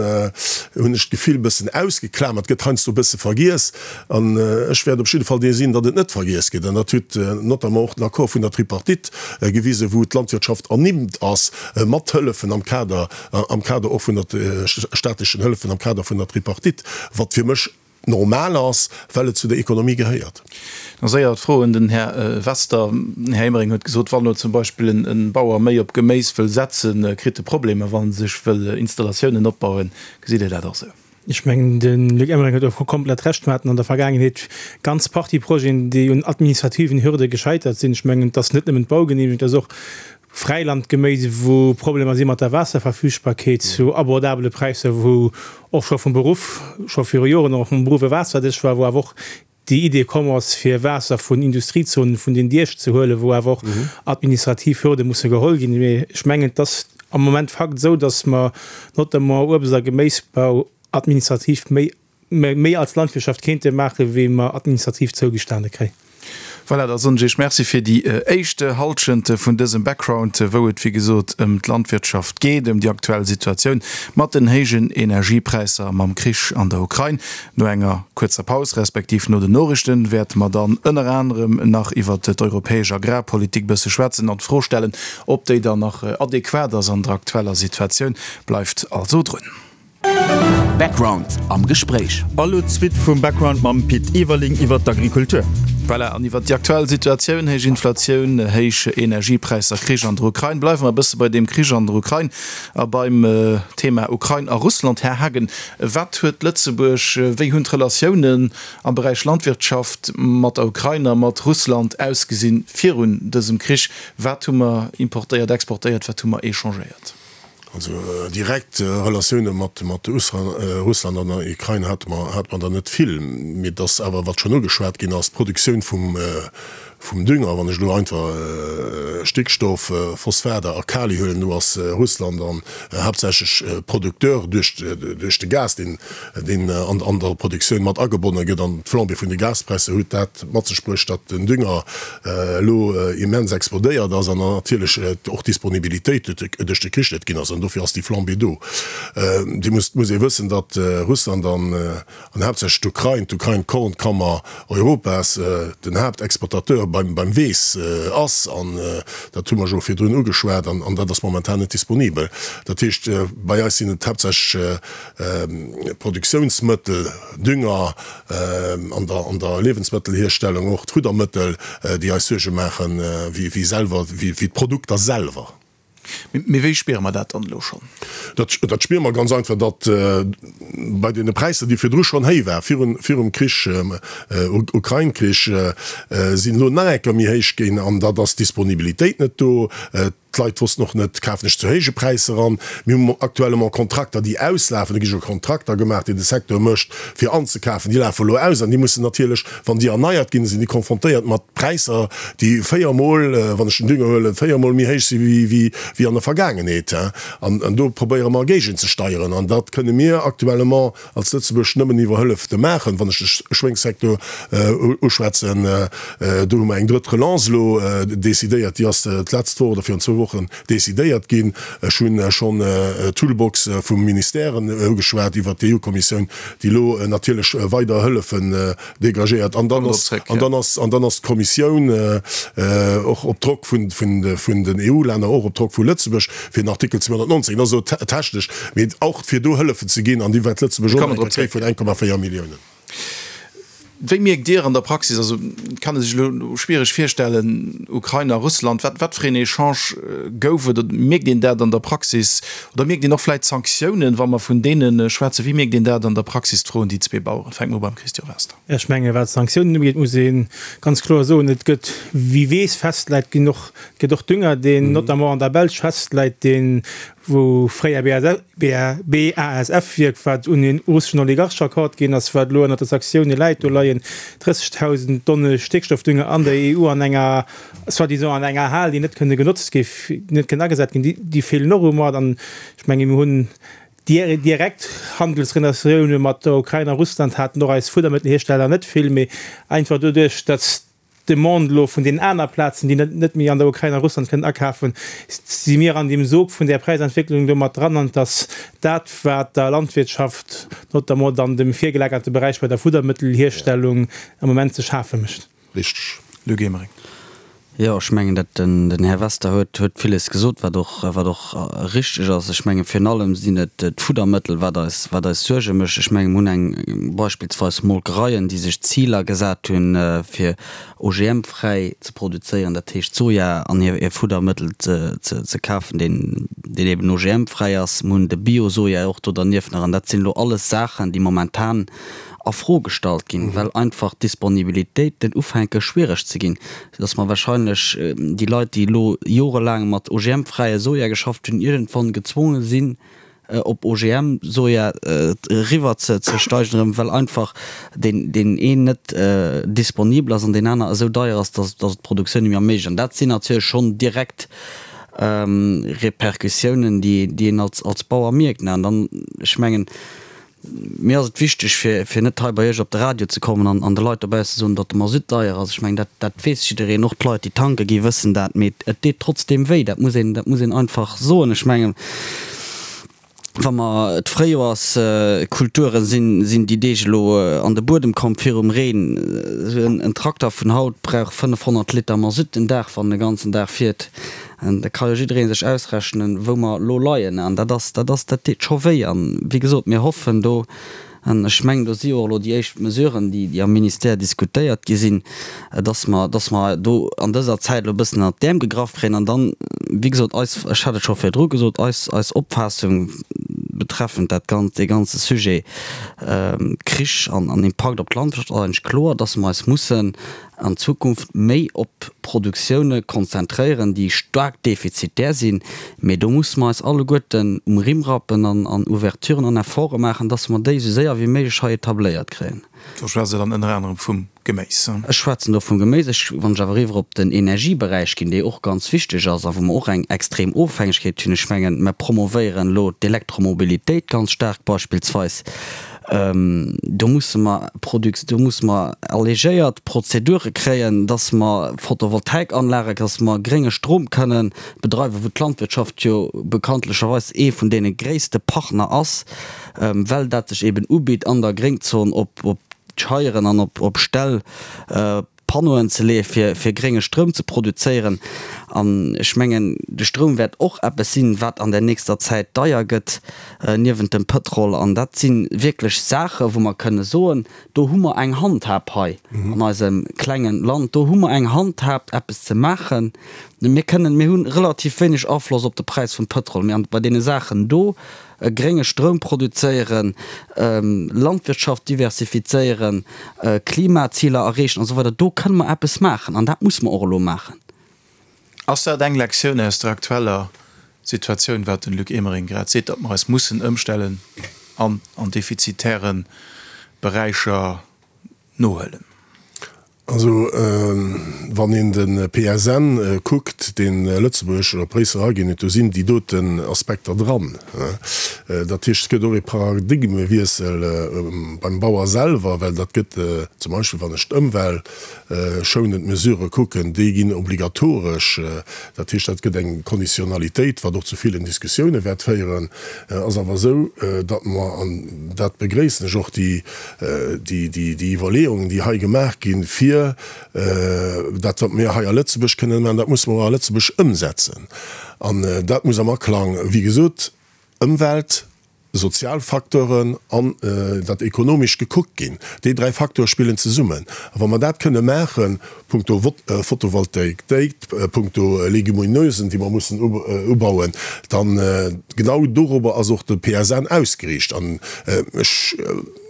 hunn ech d'Gefill, e bëssen ausgeklamert, gëtt heiansdo e bësse vergiess. An ech wäert op jidde Fall dee sinn, datt et net vergiess gëtt. An dat huet notamment och den Accord vun der Tripartite gewisen, wou d'Landwirtschaft ernimmt ass mat Hëllefen am Kader, am Kader och vun der staatlechen Hëllefen am Kader vun der Tripartite, wat fir mech normal ass, well et zu der Ekonomie gehéiert. Da séier d'Fro un den Här Wester. Den Här Emering huet gesot, wann elo zum Beispill en Bauer méi op Geméis wëll setzen, kritt e Problemer, wa en sech wëll Installatiounen opbauen. Gesitt Dir dat och esou? Ech mengen, de Luc Emering huet och komplett Recht. Mir haten an der Vergaangenheet ganz Partie Projeten, déi un administrativen Hürde gescheitert sinn. Ech mengen, et ass net nëmmen d'Baugenehmegung, et ass och Fräilandgeméis, wou Problemer si mat der Waasserverfügbarkeet zu abordabele Präisser, wou och scho vum Beruff, scho viru Joren och vum Beruff e Waasserdesch war, wou awer och déi Idee komm ass, fir Waasser vun Industriezonen, vun den Diech ze huelen, wou awer och administrativ Hürde musse geholl ginn. Mee ech mengen, et ass am Moment Fakt esou, datt mer notamment Uebst a Geméisbau administrativ méi, méi als Landwirtschaft kéinte maachen, wéi mer administrativ zougestane kréien. Voilà, da soen ech Iech Merci fir déi éischt Hallschent vun dësem Background, wou et wéi gesot ëm d'Landwirtschaft geet, ëm déi aktuell Situatioun mat den héijen Energiepräisser a mam Krich an der Ukrain. No enger kuerzer Paus, respektiv no den Noriichten, wäerte mer dann ënner anerem nach iwwert d'europäesch Agrarpolitik bësse schwätzen an d'Fro stellen, ob déi dann nach adequat ass an der aktueller Situatioun. Bleift also drun. Background am Gespréich. A lo d'Suite vum Background mam Pit Everling iwwer d'Agrikultur. Voilà, an iwwer déi aktuell Situatioun, héich Inflatioun, héich Energiepräisser, Krich an der Ukrain. Bleiwe mer e bësse bei deem Krich an der Ukrain a beim Thema Ukrain a Russland. Här Haagen, wat huet Lëtzebuerg, wéi hunn d'Relatiounen am Beräich Landwirtschaft mat der Ukrain a mat Russland ausgesinn virun dësem Krich? Wat hu mer importéiert, exportéiert, wat hu mer échangéiert? Also direkt Relatioune mat Russland an der Ukrain hate mer der net vill. Mee et ass awer, wat schonn ugeschwat ginn ass, d'Produktioun vum Dünger, wann ech elo einfach Stickstoff, Phosphater a Kali huelen, do ass Russland dann haaptsächlech Producteur duerch de Gas, deen an der Produktioun mat agebonne gëtt. An d'Flambée vun de Gaspräisser huet dat mat sech bruecht, datt den Dünger elo immens explodéiert ass an natierlech och d'Disponibilitéit duerch de Krich net ginn ass. An dofir ass déi Flambée do. Dir musst, muss ee wëssen, datt Russland an an haaptsächlech d'Ukrain, d'Ukrain d'Kornkammer Europas, den Haaptexportateur beim beim Weess ass. An dat hu mer jo virdrun ugeschwat. An an dat ass momentan net disponibel. Dat heescht, bei eis sinn et haaptsächlech Produktiounsmëttel, Dünger, an der an der Liewensmëttelhierstellung och d'Fuddermëttel, déi eis Suerge maachen, wéi wéi selwer, wéi wéi d'Produkter selwer. Mee wéi spiere mer dat dann elo schonn? Dat dat spiere mer ganz einfach, datt bei deene Präisser, déi virdru schonn héich war, virun virum Krich, Ukrain-Krich, sinn elo nach eng Kéier méi héich ginn an dat ass d'Disponibilitéit net do. D'Leit wossten och net, kafen ech zu héije Präisser an. Mir hu actuellement Kontrakter, déi auslafen. Do gi scho Kontrakter gemaach, déi de Secteur mécht, fir anzekafen. Déi lafe elo aus an déi mussen natierlech, wann déi erneiert ginn, sinn déi konfrontéiert mat Präisser, déi véiermol, wann ech den Dünger huelen, véiermol méi héich si wéi an der Vergaangenheet. An do probéiere mer géigenzesteieren. An dat kënne mir actuellement als Lëtzebuerg nëmmen iwwer Hëllef te maachen. Wann ech de Schwéngssecteur uschwätzen, do hu mer eng drëtt Relance elo decidéiert, déi ass d'letzt Woch oder virun zwou Wochen decidéiert ginn. Ech hu schonn d'Toolbox vum Ministèren ugeschwat iwwert d'EU-Kommissioun, déi elo natierlech weider Hëllefen dégagéiert. An dann ass, an dann ass, an dann ass d'Kommissioun och op Drock vun, vun, vun den EU-Länner, och op Drock vu Lëtzebuerg, fir den Artikel 219, dat ass elo technesch, mee och fir do Hëllefen ze ginn, an déi wäert Lëtzebuerg och nach eng Kéier kréie vun 1,4 Milliounen. Wéi mierkt Dir an der Praxis, also et kann ee sech elo schwiereg virstellen, Ukrain a Russland, wat, wat fir een Echange gouf et? Oder mierkt een dat an der Praxis? Oder mierkt een och vläicht Sanktiounen, wa mer vun deene schwätzen? Wéi mierkt een dat an der Praxis, d'Fro un déi zwee Baueren? Fänke mer u beim Christian Wester. Ech menge wat d'Sanktiounen ugeet, muss ee ganz kloer soen, et gëtt, wie Weess festläit, ginn och, et gëtt och Dünger, deen notamment an der Belsch festläit, deen, wou fréier BASF-Wierk, wat un een russeschen Oligarch verkaaft ginn ass, wat elo ënnert de Sanktioune läit, do leien 30.000 Tonne Stéckstoffdünger an der EU an enger, soi-disant an enger Hal, déi net kënne genotzt gi, net kënnen agesat ginn, déi feelen och um Moart. An ech menge mir hunn direkt Handelsrelatioune mat der Ukrain a Russland haten och eis Fuddermëttelhiersteller net vill, mee einfach doduerch, datt d'Demande elo vun deenen aner Plazen, déi net méi an der Ukrain a Russland kënnen akafen, si mir an deem Sog vun där Präisentwécklung do mat dran. An et ass dat, wat der Landwirtschaft, notamment an dem virgelagerte Beräich bei der Fuddermëttelhierstellung, am Moment ze schafe mécht. Richteg. Luc Emering. Jo, ech mengen, dat den Här Wester huet huet villes gesot, wat och wat och richteg ass. Ech menge virun allem sinn et d'Fuddermëttel, wat eis wat eis Suerge mécht. Ech menge mir hunn eng beispillsweis Molkereien, déi sech Ziler gesat hunn, fir OGM-fräi ze produzéieren, dat heescht Soja an hir hir Fuddermëttel ze ze ze kafen, deen deen eben OGM-fräi ass. Mir hunn de Bio-Soja och do dernieft nach. An dat sinn elo alles Saachen, déi momentan a Fro gestallt ginn, well einfach d'Disponibilitéiten ufänke schwiereg ze ginn, soudass mer wahrscheinlech déi Leit, déi elo jorelaang mat OGM-fräie Soja geschafft hunn, iergendwann gezwonge sinn, op OGM-Soja eriwwer ze steigen erëm, well einfach deen deen een net disponibel ass an deen aner esou deier ass, dass dass et d'Produktioun net méi erméiglecht. An dat sinn natierlech schonn direkt Repercussiounen, déi déi een als als Bauer mierkt. An dann, ech mengen. Mir ass et wichteg, fir, fir net hei bei Iech op de Radio ze kommen an, an de Leit dobausse soen, datt de Masutt deier ass. Ech mengen, dat, dat weess jiddereen, och d'Leit, déi tanke gi wëssen dat. Mee et deet trotzdeem wéi, dat muss een, dat muss een einfach soen. Ech mengen, wa mer d'Fréijoerskulture sinn, sinn déi Deeg elo an de Buedem komm virum Reen. Esou en Trakter vun haut brauch 500 Liter Masutt den Dag, wann en de ganzen Dag fiert. An da ka jo jidderee sech ausrechnen, wou mer elo leien. An dat ass, dat ass, dat deet scho wéi. An, wéi gesot, mir hoffen do, an ech mengen, do si jo och elo déi éischt Mesuren, déi, déi am Ministère diskutéiert gi sinn, dass mer, dass mer do an dëser Zäit elo e bëssen ënnert d'Äerm gegraff kréien. An dann, wéi gesot, eis, ech hat et scho virdru gesot, eis, eis Opfaassung betreffend dat Ganzt, dee ganze Sujet Krich an, an Impakt op d'Landwirtschaft ass eigentlech kloer, dass mer eis mussen an Zukunft méi op Produktioune konzentréieren, déi staark defizitär sinn, mee do musse mer eis alleguerten um Rimm rappen an an Ouverturen an Efforte maachen, dass mer déi esou séier wéi méiglech hei etabléiert kréien. Do schwätzt Der dann ënner anerem vum Geméis? Ech schwätzen do vum Geméis. Ech, wann ech awer eriwwer op den Energieberäich ginn, dee och ganz wichteg ass a wou mer och eng extrem Ofhängegkeet hunn, ech mengen, mer promovéieren elo d'Elektromobilitéit ganz staark beispillsweis, Do musse mer Produc-, do musse mer allégéiert Prozedure kréien, dass mer Photovoltaikanlagen, dass mer grénge Strom kënnen bedreiwen, wou d'Landwirtschaft jo bekanntlecherweis ee vun deene gréisste Partner ass, well dat sech eben ubitt an der Gréngzon op Scheieren an op Ställ Panneauen ze leeë fir fir grénge Stroum ze produzéieren. An ech mengen, de Stroum wäert och eppes sinn, wat an der nächster Zäit deier gëtt, niewent dem Pëtrol. An dat si wierklech Saache wou mer kënne soen, do hu mer eng Handhab hei an eisem klengen Land, do hu mer eng Handhab eppes ze maachen. Mir kënnen, mir hu relativ wéineg Afloss op de Präis vum Pëtrol, mee bei deene Saachen do, grénge Stroum produzéieren, Landwirtschaft diversifizéieren, Klimaziler erreechen an esou weider, do kënne mer eppes maachen an dat musse mer och elo maachen. Ass dat eng Lektioun aus der aktueller Situatioun, wat den Luc Emering grad seet, datt mer eis mussen ëmstellen an an defizitäre Beräicher nohuelen? Also wann een de PSN kuckt, dee Lëtzebuerg op Bréissel eraginn huet, do sinn déi doten Aspekter dran. Dat heescht, et gëtt och ee Paradigmewiessel beim Bauer selwer, well dat gëtt zum Beispill, wann ech d'ëmweltschounend Mesurë kucken, déi ginn obligatoresch. Dat heescht, dat gëtt eng Konditionalitéit, wat och zu villen Diskussioune wäert féieren. Ass awer esou, datt mer, an dat begréissen ech och, déi déi Iwwerleeungen, déi hei gemaach ginn, fir dat, wat mir hei a Lëtzebuerg kënnen maachen, dat musse mer och a Lëtzebuerg ëmsetzen. An dat muss am Aklang, wéi gesot, Ëmwelt, sozial Facteuren an dat Ekonomescht gekuckt ginn. Déi dräi Facteure spillen zesummen. A wa mer dat kënne maachen, punkto Photovoltaik, punkto Legumineusen, déi mer mussen ubauen, dann genau dorobber ass och de PSN ausgeriicht. An ech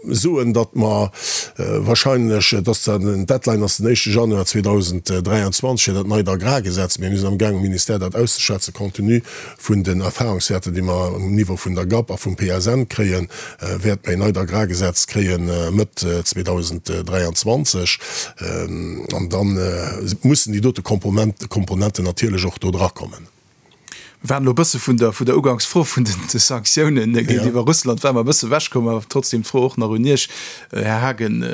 soen, datt mer wahrscheinlech, et ass zwar den Deadline ass den éischte Januar 2023 fir dat neit Agrargesetz, mee mir sinn amgaang um Ministère dat auszeschwätzen, compte tenu vun den Erfahrungswäerter, déi mer um Niveau vun der GAP a vum PSN kréien, wäerte mer een neit Agrargesetz kréie Mëtt 2023. An da mussen déi dote Komponenten natierlech och do drakommen. Mir waren elo e bësse vun der vun der Uganksfro vun de Sanktiounen géintiwwer Russland ware mer e bësse ewechkomm, awer trotzdem d'Fro och nach un Iech, Här Haagen.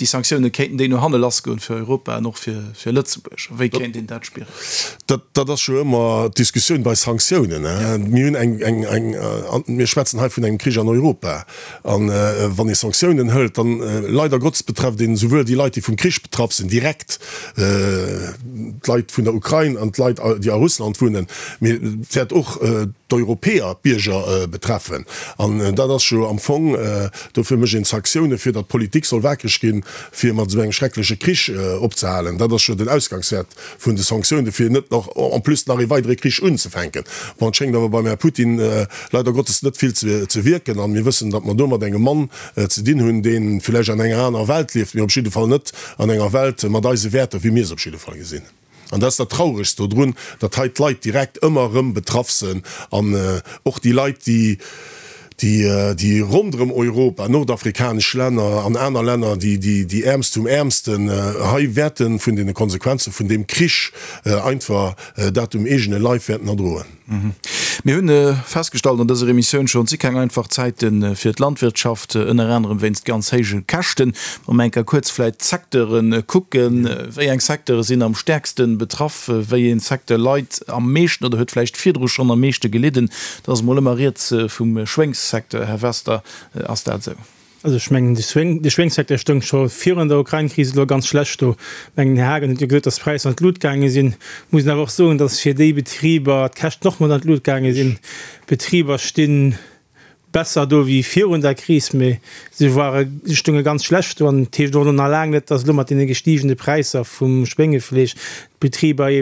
Déi Sanktioune kéinten déi no hanne lassgoen fir Europa an och fir Lëtzebuerg? A wéi kéint een dat spieren? Dat ass jo ëmmer d'Diskussioun bei Sanktiounen. Mir hunn eng, eng, eng, mir schwätzen hei vun engem Krich an Europa. A wann ee Sanktiounen hëlt, dann, leider Gottes, betrefft een esouwuel déi Leit, déi vum Krich betraff sinn, direkt, d'Leit vun der Ukrain an d'Leit, déi a Russland wunnen, mee et wäert och d'Europäer, d'Bierger betreffen. An dat ass jo am Fong Dofir mécht een Sanktioune fir datt d'Politik soll wakereg ginn, fir mat esou engem schreckleche Krich opzehalen. Dat ass jo den Ausgangswäert vun de Sanktiounen, fir net nach en plus nach ee weidere Krich unzefänken. Bon, et schéngt awer beim Här Putin leider Gottes net vill ze wierken. An mir wëssen, datt mer do mat engem Mann ze dinn hunn, dee villäicht an enger anerer Welt lieft, mee op jidde Fall net an enger Welt mat eise Wäerter, wéi mir se op jidde Fall gesinn. An dat ass dat Trauregst dodrun, datt hei d'Leit direkt ëmmer erëm betraff sënn an och déi Leit, déi, déi ronderëm Europa, nordafrikanesch Länner an aner Länner, déi, déi, déi Äermst vum Äermsten hei wäerte vun deene Konsequenze vun deem Krich einfach dat um eegene Leif wäerten erdroen. Mir hunn festgestallt an dëser Emissioun schonn, et si keng einfach Zäite fir d'Landwirtschaft, ënner anerem wéinst ganz héije Käschten. Wa mer eng Kéier kuerz vläicht d'Secteure kucken, wéi eng Secteure sinn am stäerkste betraff, wéi ee Secteur leit am meeschten oder huet vläicht virdru schonn am meeschte gelidden? Da ass emol ëmmer rieds vum Schwéngssecteur. Här Wester, ass dat esou? Also ech mengen, de Schwéngssecteur stoung scho virun der Ukrain-Kris elo ganz schlecht do. Ech mengen, den Här Haagen huet jo gesot, datt d'Präisser an d'Lut gaange sinn. Muss een awer och soen, datt fir déi Betriber d'Käschten och mat an d'Lut gaange sinn. D'Betriber sti besser do wéi virun der Kris, mee se ware, se stounge ganz schlecht do. An et heescht och elo nach laang net, datt elo mat deene gestigene Präisser vum Schwéngefleesch d'Betriber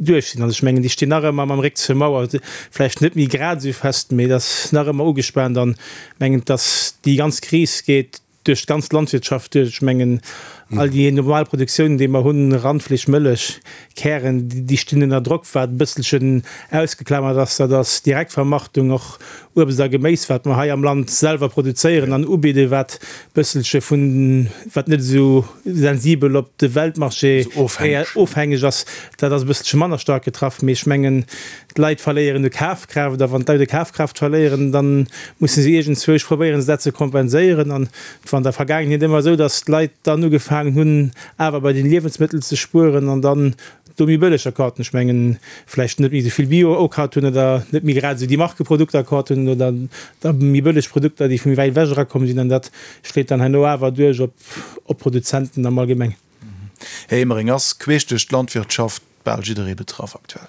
duerch sinn. Also ech mengen, déi stinn nach ëmmer mam Réck zur Mauer, vläicht net méi grad esou fest, mee et ass nach ëmmer ugespaant. An mengen, dass déi ganz Kris geet duerch d'ganz Landwirtschaft duerch. Ech mengen, all déi normal Produktiounen, déi mer hunn, Randfleesch, Mëllech, Kären, déi stinn ënner Drock. Wat e bësselchen ausgeklamert ass, dat ass d'Direktvermarktung, och Uebst a Geméis, wat mer hei am Land selwer produzéieren an ubidden, wat e bësselche vun, wat net esou sensibel op de Weltmarché ofhängeg ass, dat ass e bësselche manner staark getraff. Mee ech mengen, D'Leit verléieren u Kafkraaft, a wann d'Leit u Kafkraaft verléieren, da musse se iergendzwousch probéieren, se dat ze kompenséieren. An et war an der Vergaangenheet ëmmer esou, datt d'Leit dann ugefaangen hunn, awer bei den Liewensmëttel ze spueren an dann do méi bëlleger kafen. Ech mengen, vläicht net méi esou vill Bio okaaft hunn oder net méi grad esou déi Markeprodukter kaaft hunn oder da méi bëlleg Produkter, déi vu méi wäit ewech erakomm sinn. An dat schléit dann herno awer duerch op d'Produzenten am Allgemengen. Här Emering, ass queesch duerch d'Landwirtschaft bal jidderee betraff aktuell?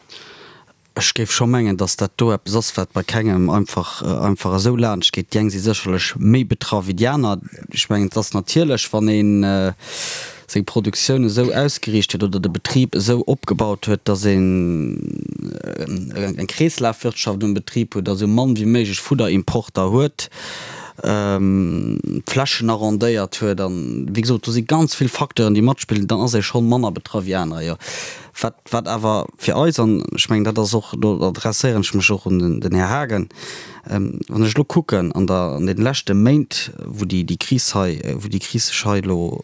Ech géif scho mengen, datt dat do eppes ass, wat bei kengem einfach einfach esou laanscht geet. Déi eng si sécherlech méi betraff wéi déi aner. Ech mengen, et ass natierlech, wann ee seng Produktioun esou ausgeriicht huet oder de Betrib esou opgebaut huet, datt een eng Kreeslafwirtschaft um Betrib huet a sou mann wéi méiglech Fudderimporter huet, d'Flächen arrondéiert huet an, wéi gesot, do si ganz vill Facteuren, déi matspillen, dann ass ee schonn manner betraff wéi anerer, jo. Wat, wat awer fir eis, an ech mengen, dat ass och, do adresséieren ech mech och un den Här Haagen, wann ech elo kucken an der, an deene leschte Méint, wou déi, déi Kris hei, wou déi Kris sech hei elo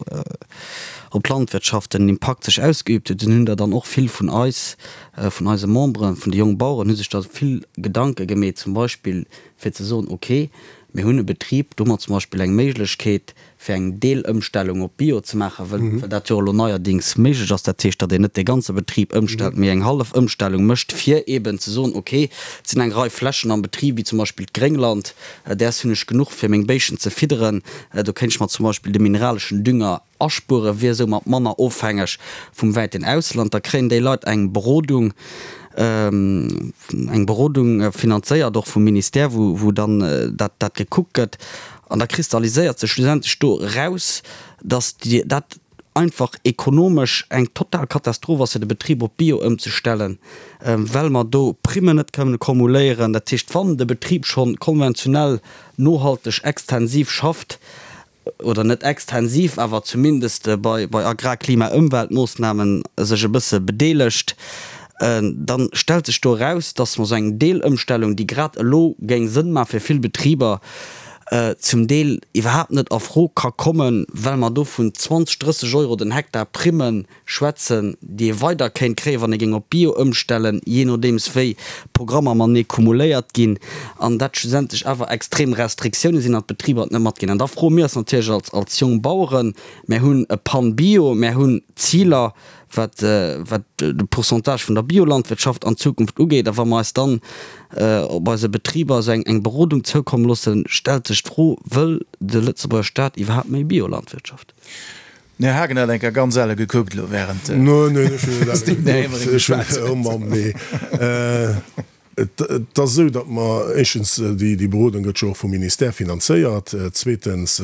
op d'Landwirtschaft den Impakt sech ausgeübt huet, dunn hunn der dann och vill vun eis, vun eise Memberen, vun de Jongbaueren hu sech da vill Gedanke gemeet, zum Beispill fir ze soen, ok, mir hunn e Betrib, do hu mer zum Beispill eng Méiglechkeet, fir eng Deelëmstellung op Bio ze maachen, well dat jo elo neierdings méiglech ass. Dat heescht, datt een net de ganze Betrib ëmstellt, mee eng hallef Ëmstellung mécht, fir eeben ze soen, ok, et sinn eng Rei Flächen am Betrib, wéi zum Beispill d'Gréngland, däers hunn ech genuch, fir meng Béischen ze fidderen, do kéint ech mer zum Beispill de mineraleschen Dünger Aspuere wier soumat manner ofhängeg vum wäiten Ausland. Da kréien déi Leit eng Berodung, eng Berodung finanzéiert och vum Ministère, wou dann dat gekuckt gëtt. An da kristalliséiert sech schlussendlech do eraus, datt dat einfach ekonomesch eng total Katastroph ass, fir de Betrib op Bio ëmzestellen, well mer do Primmen net kënnen kumuléieren. Dat heescht, wann de Betrib scho konventionell nohalteg extensiv schafft, oder net extensiv, awer zumindest bei Agrar-, Klima-, Ëmweltmoossnamen sech e bësse bedeelegt, da stellt sech do eraus, dass mer esou eng Deelëmstellung, déi grad elo géing Sënn maache fir vill Betriber, zum Deel iwwerhaapt net a Fro ka kommen, well mer do vun 20, 30 Euro den Hektar Primmen schwätzen, déi ee weider kéint kréien, wann ee géing op Bio ëmstellen, jee nodeems wéi d'Programmer matenee cumuléiert ginn, an dat schlussendlech awer extrem Restriktioune sinn an d'Betriber et net matginn. An da froe mir eis natierlech als, als Jongbaueren, mär hunn e PAN Bio, mär hunn Ziler, wat, wat de Pourcentage vun der Biolandwirtschaft an Zukunft ugeet, a wa mer eis dann op eise Betriber esou eng, eng Berodung zoukomme loossen, stellt sech d'Fro, Wëll de Lëtzebuerger Staat iwwerhaapt méi Biolandwirtschaft? Den Här Haagen hat eng Kéier ganz elle gekuckt elo während den Här Emering geschwat huet. Oh Mamm, nee. Et ass esou, datt mer éischtens, déi Berodung gëtt jo och vum Ministère finanzéiert, zweetens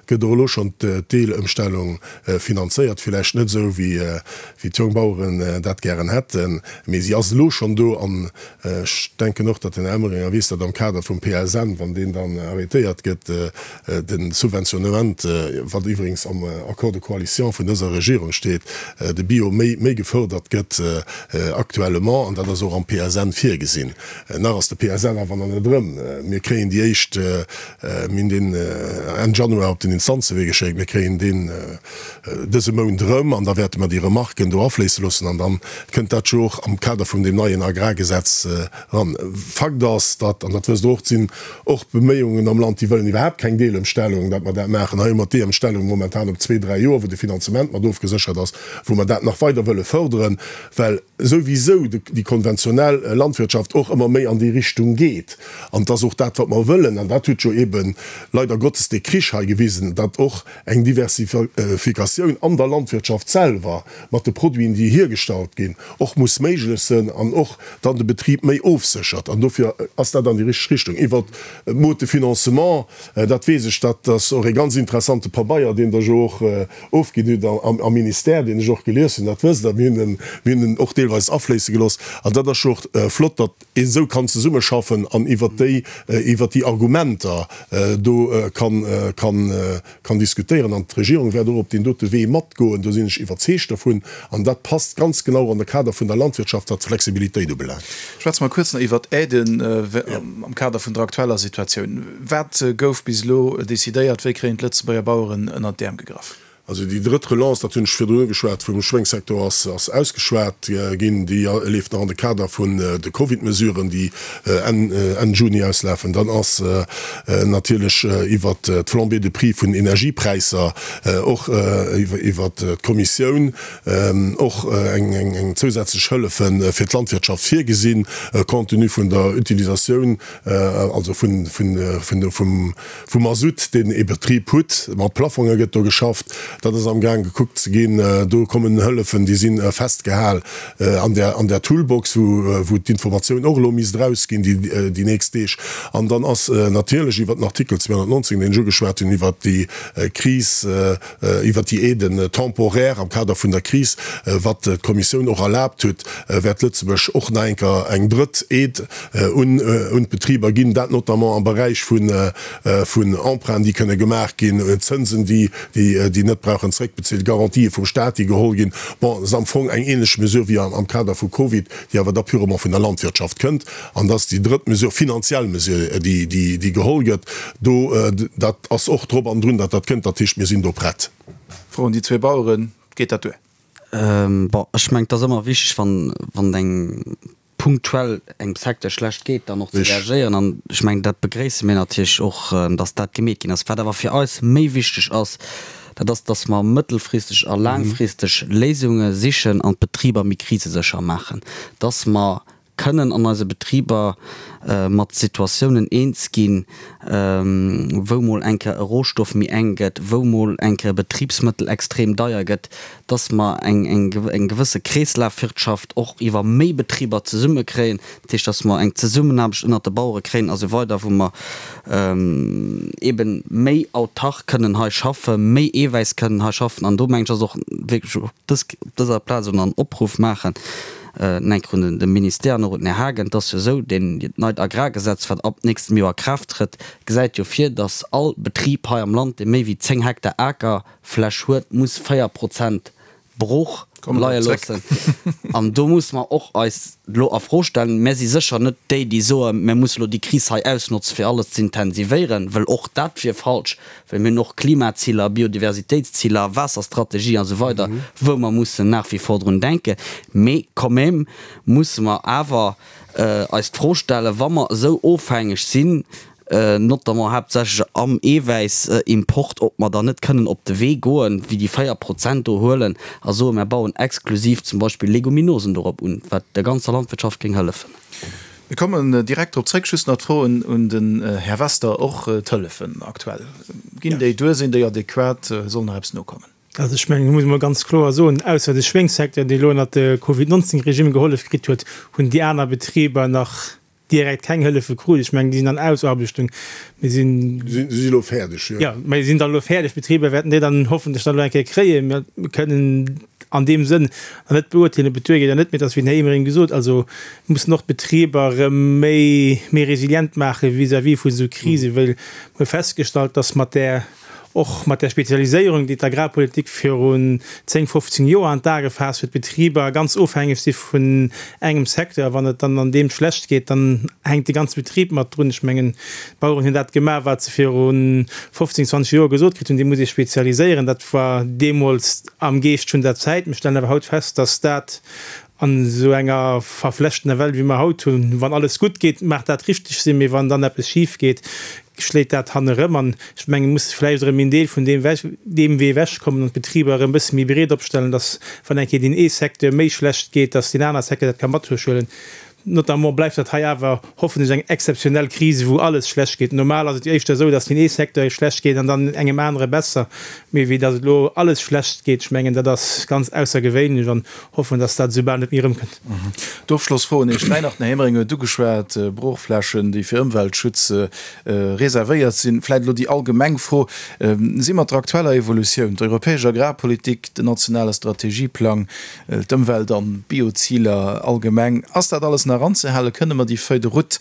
gëtt och elo schonn d'Deelëmstellung finanzéiert, villäicht net esou wéi d'Jongbaueren dat gären hätten, mee si ass elo schonn do. An ech denken och, datt den Här Emering weess, datt am Kader vum PSN, wann deen dann arrêtéiert gëtt, De Subventionnement, wat iwwregens am Accord de coalition vun dëser Regierung steet, de Bio méi méi gefördert gëtt actuellement, an dat ass och am PSN virgesinn. Nach ass de PSL awer nach net erëm. Mir kréien déi éischt, mir hunn deen Enn Januar op den Instanzewee geschéckt, mir kréien deen dëse Mount erëm an da wäerte mer déi Remarken do afléisse loossen an da kënnt dat jo och am Kader vum deem neien Agrargesetz eran. Fakt ass, datt, an dat wësst Der och, et sinn och Beméiungen am Land, déi wëllen iwwerhaapt keng Deelëmstellung, datt mer dat maachen. Hei hu mer d'Deemstellung momentan op zwee, dräi Joer, wou de Finanzement mat ofgeséchert ass, wou mer dat nach weider wëlle fërderen, well souwisou déi konventionell Landwirtschaft och ëmmer méi an déi Richtung geet. An et ass och dat, wat mer wëllen, an dat huet jo eebe leider Gottes dee Krich hei gewisen, datt och eng Diversifikatioun an der Landwirtschaft selwer mat de Produiten, déi hiergestallt ginn, och muss méiglech sënn an och dann de Betrib méi ofséchert. An dofir ass dat an déi richteg Richtung. Iwwert d'Mode de financement, dat weess ech, dat ass och ee ganz interessante Pabeier, deen Der jo och ofginn hutt am Ministère, deen ech och gelies hunn, dat wësst Der. Mir hunn en, mir hunn en och deelweis afléisse gelooss. An dat ass jo och flott, datt een esou kann zesummeschaffen an iwwert déi, iwwert déi Argumenter do kann, kann, kann diskutéieren. An d'Regierung wäert och op deen dote Wee matgoen, do sinn ech iwwerzeegt dervun. An dat passt ganz genau an de Kader vun der Landwirtschaft, wat d'Flexibilitéit ubelaangt. Schwätze mer kuerz nach iwwert d'Aiden am Kader vun der aktueller Situatioun. Wat gouf bis elo decidéiert? Wéi kréien d'Lëtzebuerger Baueren ënnert d'Äerm gegraff? Also déi drëtt Relance, dat hunn ech virdrun ugeschwat, vum Schwéngssecteur ass ausgeschwat ginn. Déi leeft nach an de Kader vun de Covid-Mesuren, déi Enn Juni auslafen. Dann ass natierlech iwwert d'Flambée de prix vun Energiepräisser och iwwert d'Kommissioun och eng zousätzlech Hëllefe fir d'Landwirtschaft virgesinn, compte tenu vun der Utilisatioun, also vum Vum Masutt, deen ee Betrib hutt, mat Plafonge gëtt do geschafft, dat ass amgaang gekuckt ze ginn. Do kommen Hëllefen, déi si festgehal an där, an där Toolbox, wou, wou d'Informatioun och elo misst erausginn déi, déi nächst Deeg. An dann ass natierlech iwwert den Artikel 219, deen ech ugeschwat hunn, iwwert déi Kris, iwwert déi Aiden temporaires am Kader vun der Kris, wat d'Kommissioun och erlaabt huet, wäert Lëtzebuerg och nach eng Kéier eng drëtt Aide un d'Betriber ginn, dat notamment am Beräich vun Emprunten, déi kënne gemaach ginn, Zënsen, déi net brauchen zréckbezilt, Garantië vum Staat, déi geholl ginn. Bon, dat ass am Fong eng ähnlech Mesure wéi am Kader vu Covid, déi awer da purement vun der Landwirtschaft kënnt. An dat ass déi drëtt Mesure, finanziell Mesure, déi geholl gëtt. Do, dat ass och drop an drun, datt dat kënnt. Dat heescht, mir sinn do prett. Fro un déi zwee Baueren, Geet dat duer? Bon, ech mengen, et ass ëmmer wichteg, wann eng punktuell engem Secteur schlecht geet, dann och ze reagéieren. An ech mengen, dat begréisse mir natierlech och, datt dat gemeet ginn ass. Wat awer fir eis méi wichteg ass, dat ass, datt mer mëttelfristeg a laangfristeg Léisunge sichen an d'Betriber méi krisesécher maachen, datt mer kënnen an eise Betriber mat Situatiounen eens ginn, wou mol eng Kéier e Rohstoff méi enk gëtt, wou mol eng Kéier e Betribsmëttel extrem deier gëtt, dass mer eng gewësse Kreeslafwirtschaft och iwwer méi Betriber zesumme kréien, dat heescht, dass mer eng Zesummenaarbecht ënnert de Bauere kréien a sou weider, wou mer eeben méi autark kënnen hei schaffen, méi Eewäiss kënnen hei schaffen. An do mengen ech, ass och wierklech op dëser Plaz un en Opruff maachen, enk un de Ministère an och un den Här Haagen, Et ass jo esou, deen, dat neit Agrargesetz, wat ab nächstem Joer a Kraaft trëtt, gesäit jo vir, dass all Betrib hei am Land, dee méi wéi 10 Hektar Aker, Fläch huet, muss 4 Prozent brooch leie loossen. An do musse mer och eis elo a Fro stellen, Mär si sécher net déi, déi soen, mär musse elo déi Kris hei ausnotzen, fir alles ze intensivéieren, well och dat wier falsch, well mir hunn och Klimaziler, Biodiversitéitsziler, Waasserstrategie a sou weider, wou mer mussen nach wie vor drun denken. Mee quand même musse mer awer eis d'Fro stellen, wa mer esou ofhängeg sinn, notamment haaptsächlech am Eewäissimport, ob mer dann net kënnen op de Wee goen, wéi déi 4 Prozent do huelen a soen, mer bauen exklusiv zum Beispill Leguminosen dorop un, wat der ganzer Landwirtschaft géing hëllefen. Mir kommen direkt drop zréck. Just nach d'Fro un den Här Wester, Och d'Hëllefen aktuell, ginn déi duer, sinn déi adequat, soll nach eppes nokommen? Also ech mengen, do muss ee mol ganz kloer soen, ausser de Schwéngssecteur, dee elo ënnert de Covid 19 Regime gehollef kritt huet, hunn déi aner Betriber nach direkt keng Hëllefe krut. Ech mengen, déi sinn an Ausaarbechtung. Mir sinn. Si si elo fäerdeg, jo. Jo, mä si sinn dann elo fäerdeg. D'Betriber wäerten déi dann hoffentlech dann elo eng Kéier kréien. Mir kënnen an deem Sënn nach net beurteelen, ob et duergeet oder net. Mee et ass, wéi den Här Emering gesot, also mir mussen och d'Betriber erëm méi, méi resilient maache vis-à-vis vu sou Krisen, well mir hu festgestallt, dass mat där. Och mat där Spezialiséierung, déi d'Agrarpolitik virun 10, 15 Joer an d'A gefaasst huet, d'Betriber ganz ofhängeg si vun engem Secteur. A wann et dann an deem schlecht geet, dann hänkt de ganze Betrib mat drun. Ech mengen, d'Baueren hunn dat gemaach, wat se viru 15, 20 Joer gesot kritt hunn, Dir musst Iech spezialiséieren. Dat war deemools am Geescht vun der Zäit. Mir stellen awer haut fest, dass dat An esou enger verflechtener Welt, wéi mer haut hunn, wann alles gutt geet, mag dat richteg sinn, mee wann dann eppes schif geet, schléit dat hannerëm. An ech mengen, et muss vläicht erëm een Deel vun deem deem Wee ewechkommen an d'Betriber erëm e bësse méi breet opstellen, dass, wann eng Kéier deen ee Secteur méi schlecht geet, dass deen anere Secteur dat ka mathuelen. Notamment bleift dat hei awer hoffentlech eng exzeptionell Kris, wou alles schlecht geet. Normal ass et jo éischter esou, dass deen ee Secteur schlecht geet an dann engem anere besser, mee wéi dass et elo alles schlecht geet, ech mengen, dat ass ganz aussergewéinlech an hoffen, dass dat esou bal net méi erëmkënnt. D'Ofschlossfro un Iech 3 nach. Den Här Emering huet ugeschwat, Broochflächen, déi fir Ëmweltschutz reservéiert sinn. Vläicht elo déi allgemeng Fro, Si mat der aktueller Evolutioun, d'europäesch Agrarpolitik, den nationale Strategieplang, D'Ëmwelt an d'Bioziler allgemeng, ass dat alles nach anzehalen? Kënne mer déi Feuille de route,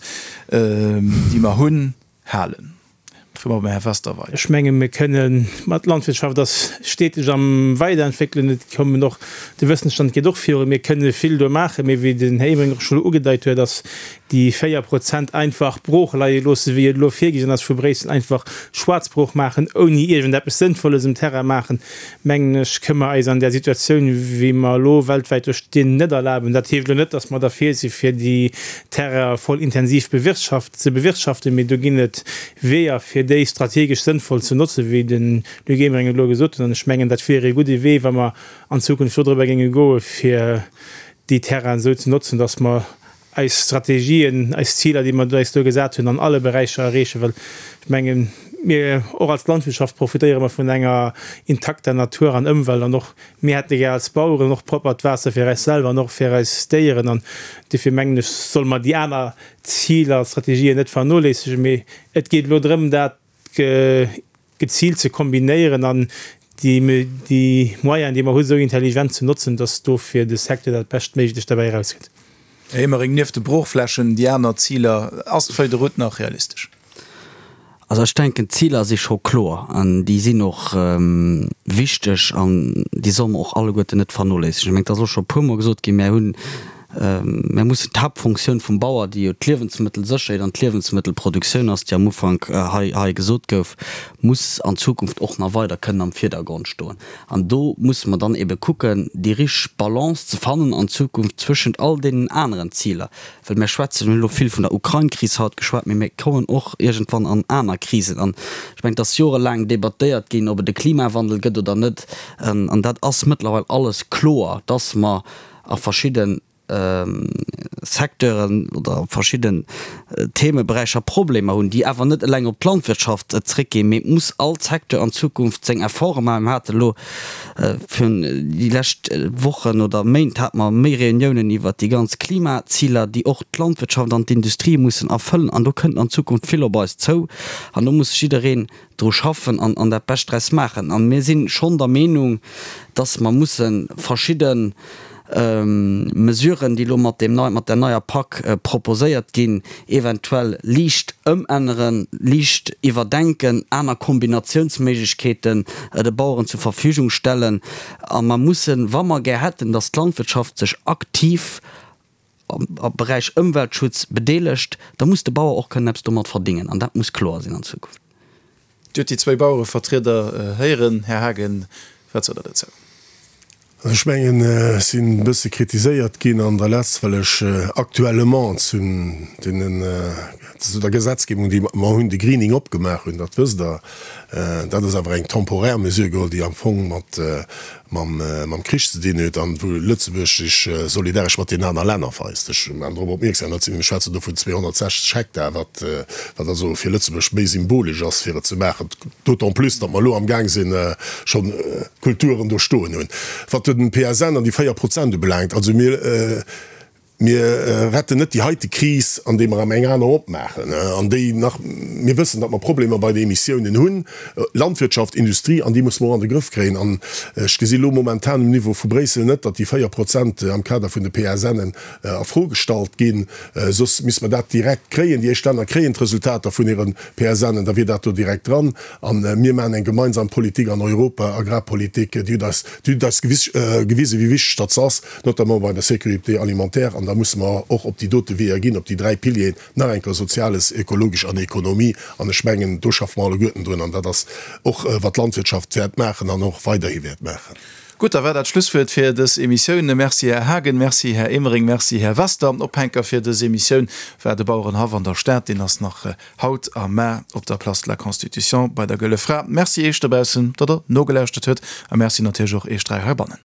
déi mer hunn, halen? Froe mer beim Här Wester weider. Ech menge mir kënnen, ma d'Landwirtschaft ass steteg am Weiderentwéckelen, et kommen och, de Wëssensstand geet och virun, mir kënne vill do maachen, mee wéi den Här Emering och scho ugedeit huet, ass déi 4 Prozent einfach brooch leie loosse wéi et elo virgesinn ass vu Bréissel, einfach Schwaarzbrooch maachen, ouni iergendeppes Sënnvolles um Terrain maachen, mengen ech, kënne mer eis an där Situatioun, wéi mer elo weltwäit do stinn, net erlaben. Dat heescht elo net, datt mer derfir si fir déi Terrainen voll intensiv bewirtschaft, ze bewirtschaften, mee do ginn et Weeër, fir déi strategesch sënnvoll ze notzen, wéi de Luc Emering et elo gesot huet. An ech mengen, dat wier ee gudde Wee, wa mer an Zukunft dodrëbber géinge goen, fir déi Terrainen esou ze notzen, datt mer eis Strategien, eis Ziler, déi mer eis do gesat hunn, an alle Beräicher erreechen, well ech mengen, mir och als Landwirtschaft profitéiere mer vun enger intakter Natur an Ëmwelt an och mir hätte gär als Baueren och proppert Waasser fir eis selwer an och fir eis Déieren an dofir mengen ech, solle mer déi aner Ziler a Strategien net vernoléissegen, mee et geet elo drëm, dat geziilt ze kombinéieren an déi Moyenen, déi mer hunn, esou intelligent ze notzen, dass do fir de Secteur dat Beschtméiglecht derbäi erauskënnt. Här Emering, nieft de Broochflächen, déi aner Ziler, ass d'Feuille de route nach realistesch? Also ech denken, d'Ziler si scho kloer an déi sinn och wichteg an déi solle mer och alleguerten net vernoléissegen. Ech mengen, et ass och scho e puermol gesot ginn, mir hunn, mir mussen d'Haaptfunktioun vum Bauer, déi jo d'Liewensmëttelsécherheet an d'Liewensmëttelproduktioun ass, déi am Ufank hei hei gesot gouf, muss an Zukunft och nach weider kënnen am Virdergrond stoen. An do musse mer dann ebe kucken, déi richteg Balance ze fannen an Zukunft zwëschent all deenen aneren Ziler. Well mir schwätzen, mir hunn elo vill vun der Ukrain-Kris haut geschwat, mee mir kommen och iergendwann an aner Krisen. An ech mengen, et ass jorelaang debattéiert ginn, ob et e Klimawandel gëtt oder net. An dat ass mëttlerweil alles kloer, dass mer a verschidde Secteuren oder verschidden Themeberäicher Problemer hunn, déi awer net eleng op d'Landwirtschaft zréckginn, mee et muss all Secteur an Zukunft seng Efforte maachen. Mir hate elo virun déi lescht Wochen oder Méint hate mer méi Reuniounen iwwert déi ganz Klimaziler, déi och d'Landwirtschaft an d'Industrie mussen erfëllen. An do kënnt an Zukunft vill op eis zou an do muss jiddereen dru schaffen an an dat Bescht draus maachen. A mir si schonn der Meenung, dass mer musse verschidde Mesuren, déi elo mat deem nei, mat der neier Pak proposéiert ginn, eventuell liicht ëmänneren, liicht iwwerdenken, aner Kombinatiounsméiglechkeeten de Baueren zur Verfügung stellen. A mer mussen, wa mer gär hätten, dass d'Landwirtschaft sech aktiv am Beräich Ëmweltschutz bedeelegt, da muss de Bauer och kënnen eppes domat verdingen. An dat muss kloer sinn an Zukunft. Dir hutt déi zwéi Bauerevertrieder héieren. Här Haagen, wat sot Der dozou? Also ech mengen, ech sinn e bësse kritiséiert ginn an der Letz, well ech actuellement zu deenen, zu der Gesetzgebung, déi mer hunn, de Greening opgemaach hunn. Dat wësst Der. Dat ass awer eng temporär Mesure geholl, déi am Fong mat mam Krich ze dinn huet an wou Lëtzebuerg sech solidaresch mat deenen aner Länner weist. Ech maachen drop opmierksam, dat sinn, mir schwätzen do vun 260 Hektar, wat wat also fir Lëtzebuerg méi symbolesch ass fir et ze maachen, d'autant plus datt mer elo amgaang sinn schonn Kulturen do stoen hunn. Wat den PSN an déi 4 Prozent ubelaangt, also mir. Mir retten net déi heite Kris, andeem mer erëm eng aner opmaachen, an déi nach, mir wëssen, datt mer Problemer bei de Emissiounen hunn, Landwirtschaft, Industrie, an déi musse mer och an de Grëff kréien. An ech gesi lo momentan um Niveau vu Bréissel net, datt déi 4 Prozent am Kader vun de PSNen a Fro gestallt ginn. Soss misste mer dat direkt kréien. Déi éischt Länner kréien d'Resultater vun hire PSNen, da wier dat do direkt dran. A mir maachen eng gemeinsam Politik an Europa, Agrarpolitik, déi huet eis, déi huet eis gewisen, wéi wichteg datt se ass. notamment bei der Sécurité alimentaire, an da musse mer och op déi dote Weeër ginn, op déi dräi Pilieren, nach eng Kéier Soziales, Ökologesch an Ekonomie, an ech mengen, do schaffe mer alleguerten drun, an dat ass och, wat d'Landwirtschaft wäert maachen an och weiderhi wäert maachen. Gutt, da war dat d'Schlusswuert fir dës Emissioun. Merci, Här Haagen, merci, Här Emering, merci, Här Wester. Ophänker fir dës Emissioun war de Bauerenhaff an der Stad. Deen ass nach haut a mar op der Place de la Constitution bei der Gëlle Fra. Merci Iech dobaussen, datt Der nogelauschtert huet, a merci natierlech och Iech dräi heibannen.